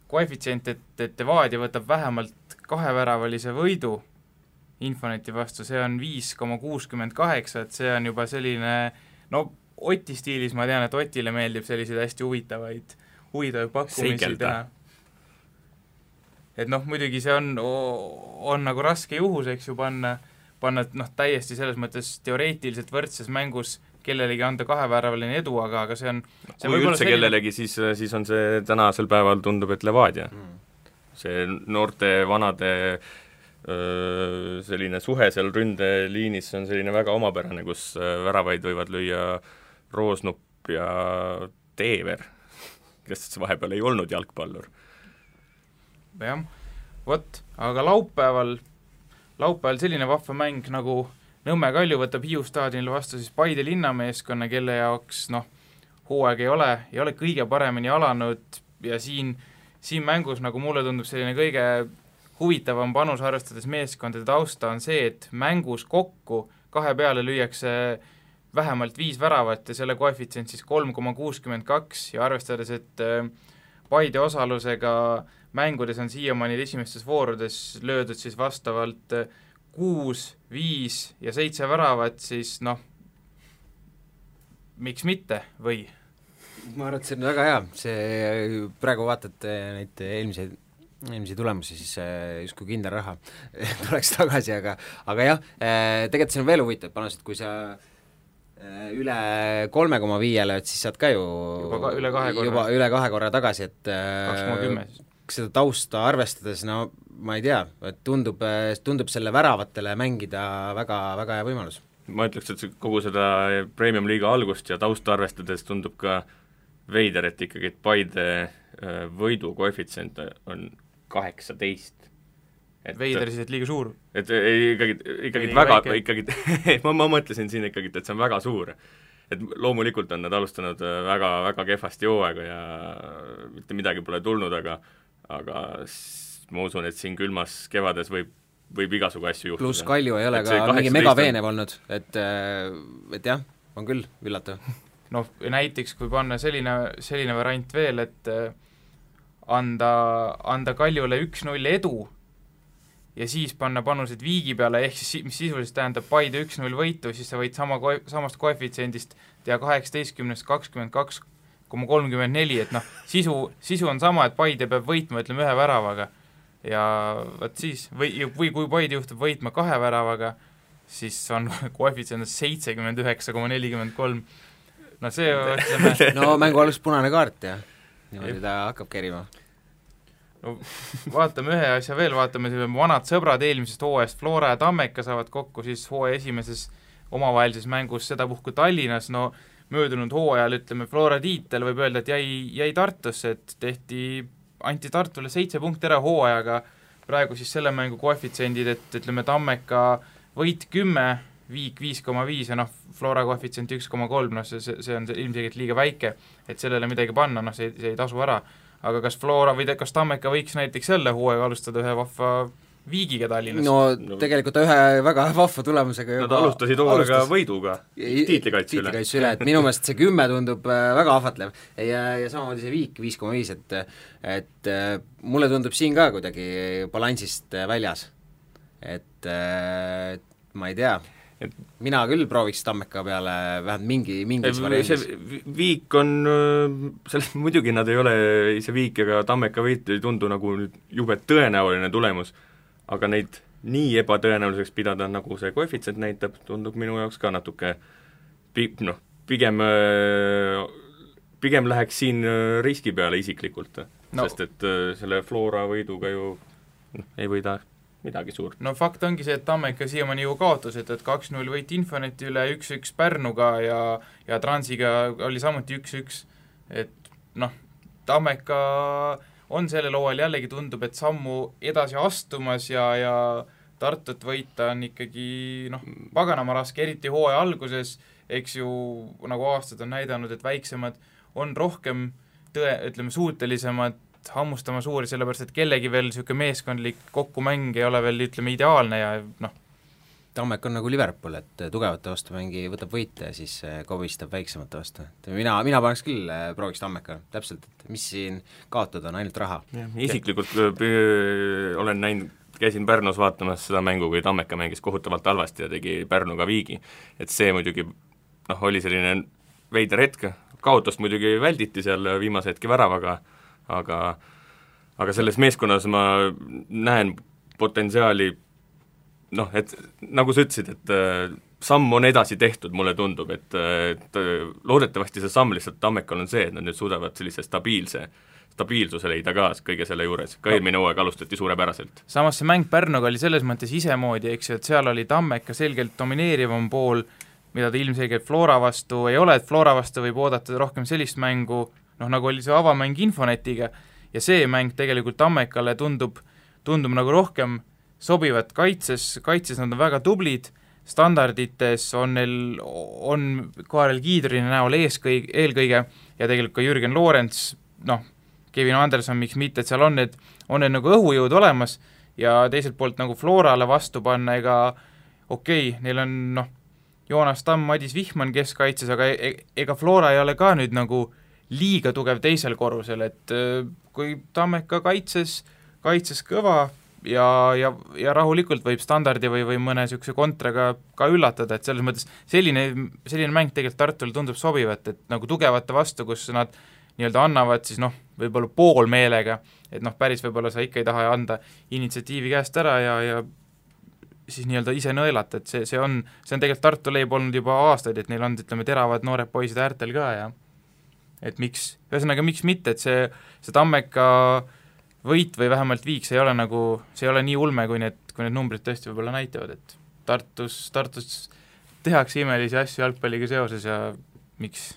Speaker 3: koefitsient, et Levadia võtab vähemalt 2-väravalise võidu Infoneti vastu, see on 5,68, et see on juba selline, no Oti stiilis ma tean, et Otile meeldib selliseid hästi huvitavaid pakkumisi teha. Et noh, muidugi see on nagu raske juhus, eks ju, panna täiesti selles mõttes teoreetiliselt võrdses mängus kellelegi anda 2-väravaline edu, aga see on
Speaker 5: kui üldse kellelegi, siis on see tänasel päeval tundub, et Levadia. See noorte, vanade selline suhe seal ründeliinis on selline väga omapärane, kus väravaid võivad lüüa Roosnupp ja Teever, kes vahepeal ei olnud jalgpallur.
Speaker 3: Jah, aga laupäeval selline vahva mäng nagu Nõmme Kalju võtab Hiiu staadionil vastu siis Paide linnameeskonna, kelle jaoks hooaeg ei ole kõige paremini alanud ja siin mängus, nagu mulle tundub, selline kõige huvitavam panus arvestades meeskondade tausta on see, et mängus kokku 2 peale lüüakse vähemalt 5 väravat ja selle koefitsient siis 3,62 ja arvestades, et Paide osalusega mängudes on siiamaani esimestes voorudes löödud siis vastavalt 6, 5 ja 7 väravat, siis miks mitte, või?
Speaker 4: Ma arvan, et see on väga hea, see praegu vaatad neid eelmisi tulemusi, siis justkui kindel raha tuleks tagasi, aga jah, tegelikult see on veel huvitav panus, et kui sa üle 3,5 lööd, siis saad ka ju
Speaker 3: üle
Speaker 4: 2 korra tagasi, et
Speaker 3: 2,10
Speaker 4: seda tausta arvestades, ma ei tea, et tundub selle väravatele mängida väga, väga hea võimalus.
Speaker 5: Ma ütleks, et kogu seda Premium liiga algust ja tausta arvestades tundub ka veider, et ikkagi Paide võidu koefitsient on 18.
Speaker 3: Veider siis, et liiga suur?
Speaker 5: Et ikkagi väga, ma mõtlesin siin ikkagi, et see on väga suur. Et loomulikult on nad alustanud väga, väga kehvasti hooaega ja mitte midagi pole tulnud, aga ma usun, et siin külmas kevades võib igasugu asju juhtuda.
Speaker 4: Pluss Kalju ei ole ka mingi megaveenev olnud, et jah, on küll üllatav.
Speaker 3: Näiteks kui panna selline variant veel, et anda Kaljule 1-0 edu ja siis panna panused viigi peale, ehk siis mis sisuliselt tähendab Paide 1-0 võitu, siis sa võid samast koefitsiendist teha 18-st 22,34, et sisu on sama, et Paide peab võitma, ütleme, 1 väravaga ja võt siis, või kui Paide juhtub võitma 2 väravaga, siis on koefitsient 79,43. See ütleme...
Speaker 4: mängu algus punane kaart ja niimoodi ta hakkab kerima.
Speaker 3: no vaatame ühe asja veel, vaatame vanad sõbrad eelmisest hooajast, Flora ja Tammeka saavad kokku siis hooaja esimeses omavahelises mängus sedapuhku Tallinnas, no möödunud hooajal, ütleme, Flora tiitel võib öelda, et jäi Tartusse, et anti Tartule 7 punkti ära hooajaga, praegu siis selle mängu koefitsendid, et ütleme, Tammeka võit 10, Viik 5,5 ja Flora koefitsient 1,3, see on ilmselgelt liiga väike, et sellele midagi panna, see ei tasu ära. Aga kas Flora või kas Tammeka võiks näiteks jälle hooaega alustada ühe vahva Viigiga Tallinnas?
Speaker 4: No tegelikult ühe väga vahva tulemusega
Speaker 5: Nad alustasid hooaega võiduga tiitlikaitse
Speaker 4: üle, et minu meelest see 10 tundub väga ahvatlev ja samamoodi see Viik 5,5, et mulle tundub siin ka kuidagi balansist väljas, et ma ei tea, mina küll prooviks Tammeka peale vähemalt mingis variandis.
Speaker 5: Viik on, selles muidugi nad ei ole, see Viik ega Tammeka võit ei tundu nagu jube tõenäoline tulemus, aga neid nii ebatõenäoliseks pidada, nagu see koefitsient näitab, tundub minu jaoks ka natuke pigem läheks siin riski peale isiklikult, sest et selle Flora võiduga ju ei võida midagi suurt.
Speaker 3: No fakt ongi see, et Tammeka siiamaani ju kaotus, et 2-0 võit Infoneti üle, 1-1 Pärnuga ja Transiga oli samuti 1-1, et Tammeka on sellel hooajal jällegi tundub, et sammu edasi astumas ja Tartut võita on ikkagi paganama raske, eriti hooaja alguses, eks ju, nagu aastad on näidanud, et väiksemad on rohkem suutelisemad hammustama suuri, sellepärast, et kellegi veel niisugune meeskondlik kokkumäng ei ole veel, ütleme, ideaalne ja
Speaker 4: Tammeka on nagu Liverpool, et tugevate vastu võtab võite ja siis kobistab väiksemate vastu. Mina paneks küll, prooviks Tammeka, täpselt, et mis siin kaotada on, ainult raha.
Speaker 5: Isiklikult olen näinud, käisin Pärnus vaatamas seda mängu, kui Tammeka mängis kohutavalt halvasti ja tegi Pärnuga viigi, et see muidugi oli selline veider hetk, kaotust muidugi välditi seal viimase hetki väravaga, aga selles meeskonnas ma näen potentsiaali, et nagu sa ütlesid, et samm on edasi tehtud, mulle tundub, et loodetavasti see samm lihtsalt Tammekal on see, et nad nüüd suudavad sellise stabiilsuse leida ka kõige selle juures, ka eelmine hooaeg alustati suurepäraselt.
Speaker 3: Samas see mäng Pärnuga oli selles mõttes isemoodi, eks ju, et seal oli Tammeka selgelt domineerivam pool, mida ta ilmselgelt Flora vastu ei ole, et Flora vastu võib oodata rohkem sellist mängu, nagu oli see avamäng Infonetiga, ja see mäng tegelikult Tammekale tundub nagu rohkem sobivat kaitses nad on väga tublid, standardites on Kaarel Kiidrini näol eelkõige ja tegelikult ka Jürgen Loorents, Kevin Anderson, miks mitte, et seal on need nagu õhujõud olemas ja teiselt poolt nagu Florale vastu panna, neil on Joonas Tamm, Madis Vihman keskkaitses, aga ega Flora ei ole ka nüüd nagu liiga tugev teisel korrusel, et kui Tammeka kaitses kõva ja rahulikult võib standardi või mõne niisuguse kontraga ka üllatada, et selles mõttes selline mäng tegelikult Tartule tundub sobivat, et nagu tugevate vastu, kus nad nii-öelda annavad siis võib-olla poolmeelega, et päris võib-olla sa ikka ei taha anda initsiatiivi käest ära ja siis nii-öelda ise nõelata, et see on tegelikult Tartu leib olnud juba aastaid, et neil on, ütleme, teravad noored poisid äärtel ka ja et miks mitte, et see Tammeka võit või vähemalt viik, see ei ole nii ulme, kui need numbrid tõesti võib-olla näitavad, et Tartus tehakse imelisi asju jalgpalliga seoses ja miks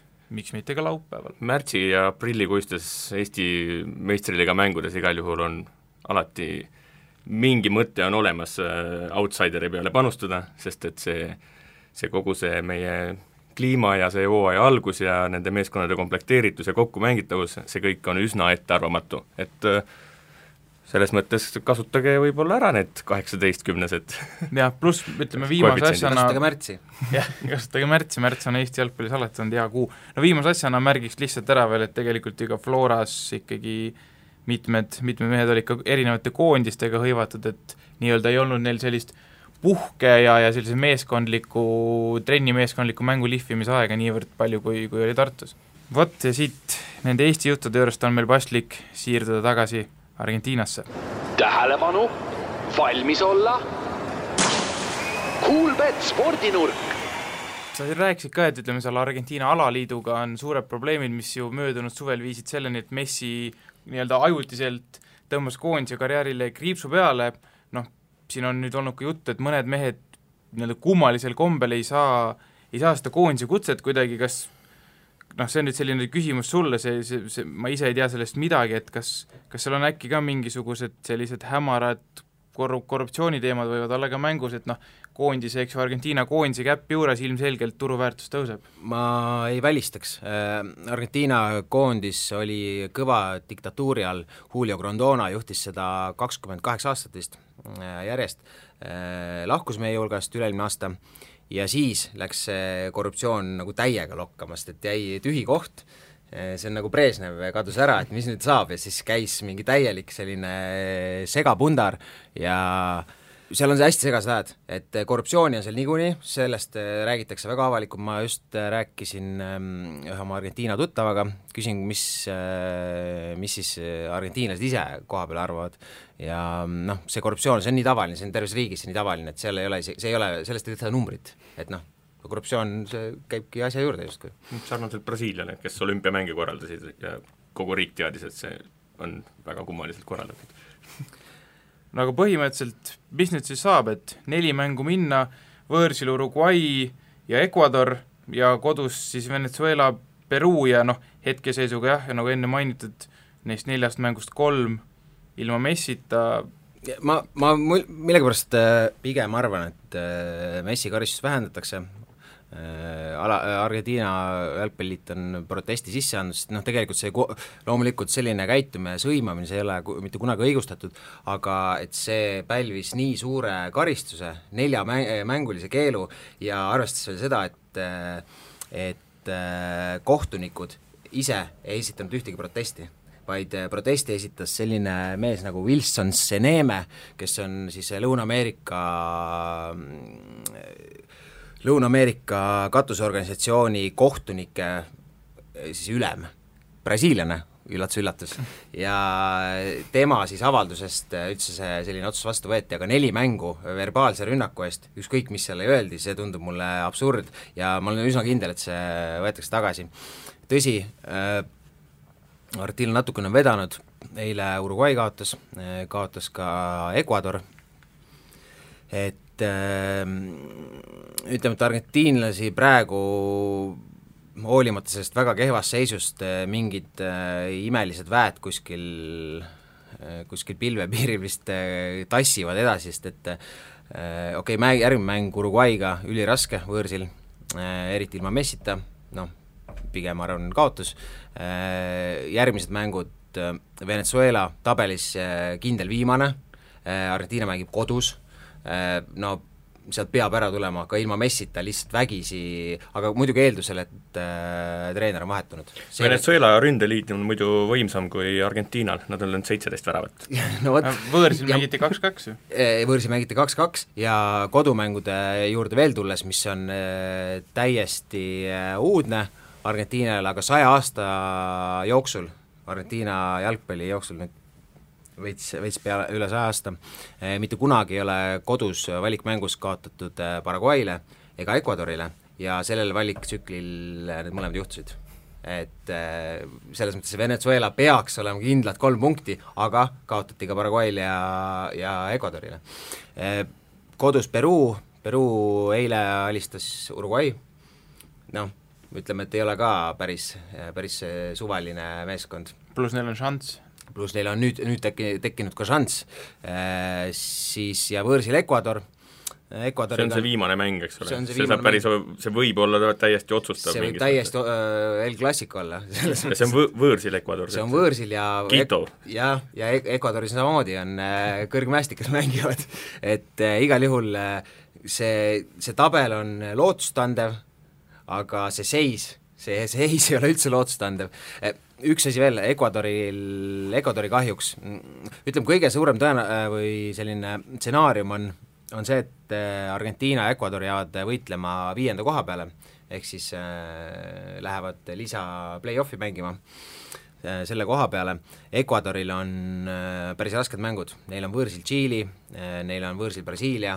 Speaker 3: mitte ka laupäeval.
Speaker 5: Märtsi ja aprillikuistes Eesti meistriliiga mängudes igal juhul on alati mingi mõte on olemas outsideri peale panustada, sest et see kogu see meie kliima ja see hooaja algus ja nende meeskonnade komplekteeritus ja kokkumängitavus, see kõik on üsna ettearvamatu, et selles mõttes kasutage võib-olla ära need 18-10-sed.
Speaker 3: Jah, pluss ütleme viimase asjana
Speaker 4: kasutage märtsi.
Speaker 3: Jah, kasutage märts on Eesti jalgpallis alati olnud hea kuu. No viimase asjana märgiks lihtsalt ära veel, et tegelikult ju ka Floras ikkagi mitmed mehed olid ka erinevate koondistega hõivatud, et nii-öelda ei olnud neil sellist puhke ja sellise trennimeeskondliku mängu lihvimise aega niivõrd palju, kui oli Tartus. Vot ja siit nende Eesti juttude juurest on meil paslik siirduda tagasi Argentiinasse.
Speaker 6: Tähelepanu, valmis olla. Kuulbet spordinurk.
Speaker 3: Sa rääkisid ka, et ütleme seal Argentiina alaliiduga on suured probleemid, mis ju möödunud suvel viisid selleni, et Messi nii-öelda ajutiselt tõmbas koondise karjäärile kriipsu peale, noh, siin on nüüd olnud ka jutt, et mõned mehed nii-öelda kummalisel kombel ei saa seda koondise kutset kuidagi, kas noh, see on nüüd selline küsimus sulle, ma ise ei tea sellest midagi, et kas seal on äkki ka mingisugused sellised hämarad korruptsiooniteemad võivad olla ka mängus, et noh, koondise, eks ju, Argentiina koondise käpp juures ilmselgelt turuväärtus tõuseb?
Speaker 4: Ma ei välistaks. Argentiina koondis oli kõva diktatuuri all, Julio Grondona juhtis seda 28 aastat vist järjest, lahkus meie hulgast üle-eelmine aasta ja siis läks see korruptsioon nagu täiega lokkama, sest et jäi tühi koht, see on nagu Brežnev kadus ära, et mis nüüd saab ja siis käis mingi täielik selline segapundar ja seal on see hästi segased ajad, et korruptsiooni on seal niikuinii, sellest räägitakse väga avalikult, ma just rääkisin ühe oma Argentiina tuttavaga, küsin, mis siis argentiinlased ise koha peal arvavad ja noh, see korruptsioon, see on nii tavaline, see on terves riigis nii tavaline, et seal ei ole, see ei ole, sellest ei võtta numbrit, et noh, korruptsioon, see käibki asja juurde justkui.
Speaker 5: Sarnaselt Brasiiliale, kes olümpiamänge korraldasid ja kogu riik teadis, et see on väga kummaliselt korraldatud.
Speaker 3: No aga põhimõtteliselt, mis nüüd siis saab, et 4 mängu minna, võõrsil Uruguay ja Ecuador ja kodus siis Venezuela, Peruu ja noh, hetkeseisuga jah, ja nagu enne mainitud, neist 4 mängust 3 ilma Messita.
Speaker 4: Ma millegipärast pigem arvan, et Messi karistus vähendatakse, Argentiina jalgpalliit on protesti sisse andnud, sest noh, tegelikult see loomulikult selline käitumine, sõimamine, see ei ole mitte kunagi õigustatud, aga et see pälvis nii suure karistuse, 4 mängulise keelu ja arvestades veel seda, et kohtunikud ise ei esitanud ühtegi protesti, vaid protesti esitas selline mees nagu Wilson Seneme, kes on siis Lõuna-Ameerika katusorganisatsiooni kohtunike siis ülem, brasiiliane, üllatus, ja tema siis avaldusest üldse see selline otsus vastu võeti, aga 4 mängu verbaalse rünnaku eest, ükskõik mis selle öeldi, see tundub mulle absurd ja ma olen üsna kindel, et see võetakse tagasi. Tõsi, Artil natukene on vedanud, eile Uruguay kaotas ka Ecuador, et ütleme, et argentiinlasi praegu hoolimata sellest väga kehvast seisust mingid imelised väed kuskil pilvepiiril vist tassivad edasi, sest et järgmine mäng Uruguayga üliraske võõrsil, eriti ilma Messita, noh, pigem arvan kaotus, järgmised mängud Venezuela tabelis kindel viimane, Argentiina mängib kodus, no sealt peab ära tulema ka ilma Messita lihtsalt vägisi, aga muidugi eeldusel, et treener on vahetunud.
Speaker 5: Venezuela ründeliit on muidu võimsam kui Argentiinal, nad on löönud 17 väravat.
Speaker 3: No, võõrsil mängiti 2-2 ju.
Speaker 4: Võõrsil mängiti 2-2 ja kodumängude juurde veel tulles, mis on täiesti uudne Argentiinale, aga 100 aasta jooksul, Argentiina jalgpalli jooksul nüüd veits peale üle 100 aasta, mitte kunagi ei ole kodus valikmängus kaotatud Paraguay'le ega Ecuadorile ja sellel valiktsüklil need mõlemad juhtusid. Et selles mõttes Venezuela peaks olema kindlad 3 punkti, aga kaotati ka Paraguay'le ja Ecuadorile. Kodus Peruu eile alistas Uruguay, noh, ütleme, et ei ole ka päris suvaline meeskond.
Speaker 3: Plus neil on šanss.
Speaker 4: Pluss neil on nüüd tekkinud ka šanss, siis ja võõrsil Ecuador.
Speaker 5: See on see viimane mäng, eks ole? See võib olla täiesti otsustav.
Speaker 4: See võib täiesti El Clasico olla.
Speaker 5: See on võõrsil Ecuador.
Speaker 4: See on võõrsil ja
Speaker 5: Quito.
Speaker 4: Ja Ecuadoris samamoodi on kõrgmäestikas mängivad, et igal juhul see tabel on lootustandev, aga see seis ei ole üldse lootustandev. Üks asi veel, Ecuadori kahjuks, ütleme, kõige suurem või selline stsenaarium on see, et Argentiina ja Ecuador jäävad võitlema 5. koha peale, ehk siis lähevad lisa play-offi mängima selle koha peale. Ecuadoril on päris rasked mängud, neil on võõrsil Tšiili, neil on võõrsil Brasiilia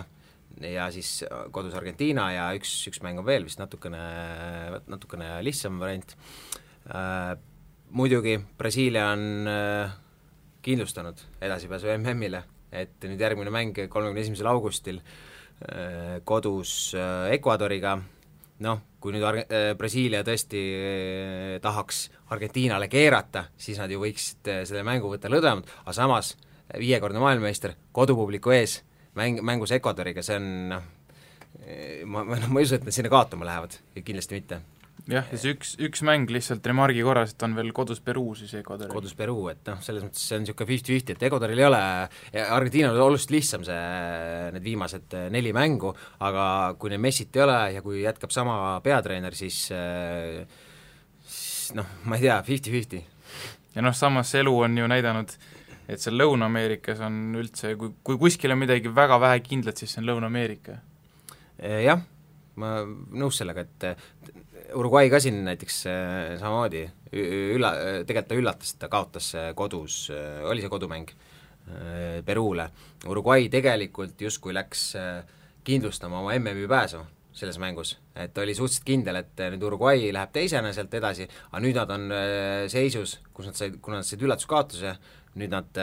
Speaker 4: ja siis kodus Argentiina ja üks mäng on veel vist natukene lihtsam variant. Muidugi Brasiilia on kindlustanud edasipääsu MM-ile, et nüüd järgmine mäng 31. augustil kodus Ecuadoriga, noh, kui nüüd Brasiilia tõesti tahaks Argentiinale keerata, siis nad ju võiksid selle mängu võtta lõdvemalt, aga samas 5-kordne maailmameister kodupubliku ees mängus Ecuadoriga, see on ma ei usu, et nad sinna kaotama lähevad, kindlasti mitte.
Speaker 3: Jah, ja see üks mäng lihtsalt remargi korras, et on veel kodus Peruu siis Ecuadoril.
Speaker 4: Kodus Peruu, et noh, selles mõttes see on niisugune 50-50, et Ecuadoril ei ole, Argentiinal on oluliselt lihtsam need viimased 4 mängu, aga kui neil Messit ei ole ja kui jätkab sama peatreener, siis noh, ma ei tea, 50-50.
Speaker 3: Ja noh, samas elu on ju näidanud, et seal Lõuna-Ameerikas on üldse, kui kuskil on midagi väga vähe kindlat, siis see on Lõuna-Ameerika.
Speaker 4: Jah, ma nõus sellega, et Uruguay ka siin näiteks samamoodi tegelikult ta üllatas, et ta kaotas kodus, oli see kodumäng Peruule. Uruguay tegelikult justkui läks kindlustama oma MM-i pääsu selles mängus, et oli suhteliselt kindel, et nüüd Uruguay läheb teisena sealt edasi, aga nüüd nad on seisus, kuna nad said üllatuskaotuse, nüüd nad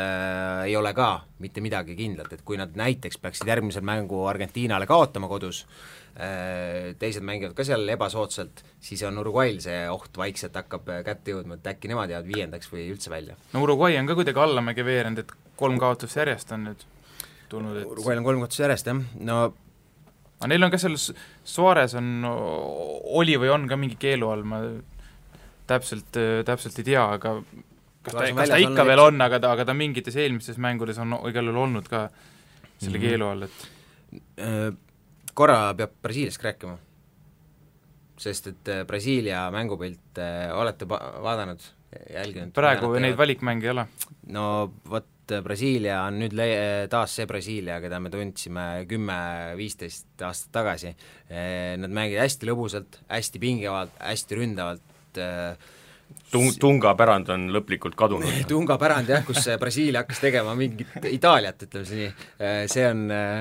Speaker 4: ei ole ka mitte midagi kindlat, et kui nad näiteks peaksid järgmisel mängu Argentiinale kaotama kodus, teised mängivad ka seal ebasoodsalt, siis on Uruguayl see oht vaikselt hakkab kätte jõudma, et äkki nemad jäävad 5. või üldse välja.
Speaker 3: No Uruguay on ka kuidagi allamäge veerend, et 3 kaotust järjest on nüüd tulnud, et
Speaker 4: Uruguayl on 3 kaotust järjest, jah, no
Speaker 3: aga neil on ka seal Suarez oli või on ka mingi keelu all, ma täpselt ei tea, aga kas ta ikka veel on, aga ta mingites eelmistes mängudes on igal juhul olnud ka selle keelu all, et
Speaker 4: korra peab Brasiiliast rääkima, sest et Brasiilia mängupilt olete vaadanud, jälginud?
Speaker 3: Praegu neid valikmänge ei ole.
Speaker 4: No vot, Brasiilia on nüüd taas see Brasiilia, keda me tundsime 10-15 aastat tagasi. Nad mängid hästi lõbusalt, hästi pingevalt, hästi ründavalt.
Speaker 5: Tunga pärand on lõplikult kadunud.
Speaker 4: Tunga pärand jah, kus Brasiilia hakkas tegema mingit Itaaliat, ütleme see nii.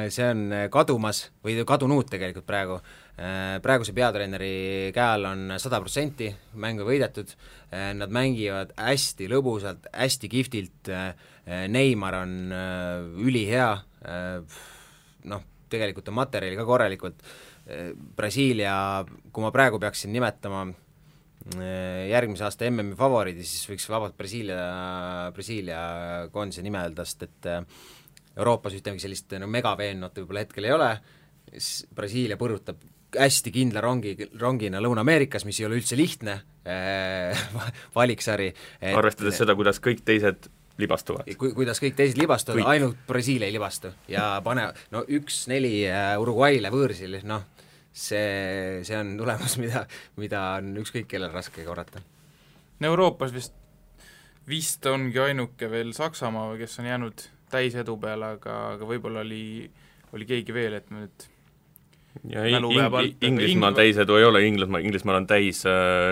Speaker 4: See on kadumas või kadunud tegelikult praegu. Praeguse peatreeneri käe all on 100% mängu võidetud, nad mängivad hästi lõbusalt, hästi kihvtilt, Neymar on ülihea, noh, tegelikult on materjali ka korralikult, Brasiilia, kui ma praegu peaksin nimetama järgmise aasta MM-i favoriidi, siis võiks vabalt Brasiilia koondise nime öelda, sest et Euroopas ühtegi sellist megaveennot võib-olla hetkel ei ole, Brasiilia põrutab hästi kindla rongina Lõuna-Ameerikas, mis ei ole üldse lihtne valiksari.
Speaker 5: Arvestades seda, kuidas kõik teised libastuvad.
Speaker 4: Kuidas kõik teised libastuvad, ainult Brasiilia ei libastu ja pane 1-4 Uruguay'le võõrsil, noh, see on tulemus, mida on ükskõik kellel raske korrata.
Speaker 3: Euroopas vist ongi ainuke veel Saksamaa, kes on jäänud täisedu peale, aga võib-olla oli keegi veel, et me nüüd
Speaker 5: ja Inglismaal täisedu ei ole, Inglismaal on täis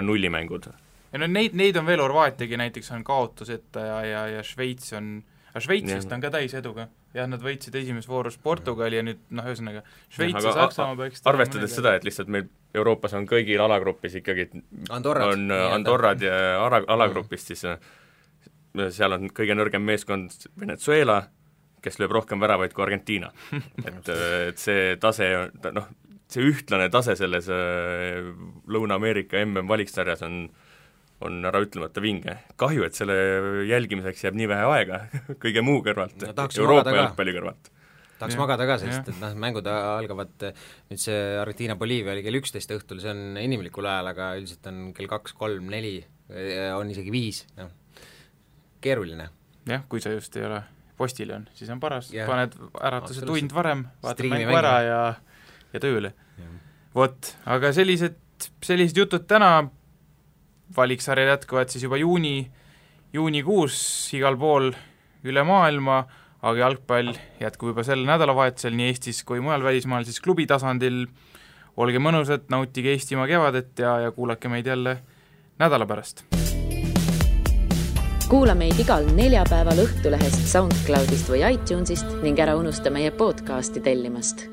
Speaker 5: nullimängud.
Speaker 3: Ja no neid on veel, Horvaatiagi näiteks on kaotuseta ja Šveits Šveitsist on ka täiseduga. Jah, nad võitsid esimeses voorus Portugali ja nüüd, ühesõnaga, Šveits ja Saksamaa peaks
Speaker 5: arvestades seda, et lihtsalt meil Euroopas on kõigil alagrupis ikkagi Andorrad ja alagrupist, siis seal on kõige nõrgem meeskond Venezuela, kes lööb rohkem väravaid kui Argentiina. et see tase, see ühtlane tase selles Lõuna-Ameerika MM-valiksarjas on ära ütlemata vinge. Kahju, et selle jälgimiseks jääb nii vähe aega kõige muu kõrvalt, Euroopa jalgpalli kõrvalt.
Speaker 4: Tahaks magada ka, sest et mängud algavad, nüüd see Argentiina-Boliivia oli kell 11 õhtul, see on inimlikul ajal, aga üldiselt on kell 2, 3, 4, on isegi 5, keeruline.
Speaker 3: Jah, kui sa just ei ole postiljon, siis on paras, paned äratuse tund varem, vaatad mängu ära ja tööle. Vot, aga sellised jutud täna, valiksarjad jätkuvad siis juba juunikuus igal pool üle maailma, aga jalgpall jätkub juba sel nädalavahetusel nii Eestis kui mujal välismaal siis klubi tasandil. Olge mõnusad, nautige Eestimaa kevadet ja kuulake meid jälle nädala pärast.
Speaker 1: Kuula meid igal neljapäeval Õhtulehest, SoundCloudist või iTunesist ning ära unusta meie podcasti tellimast.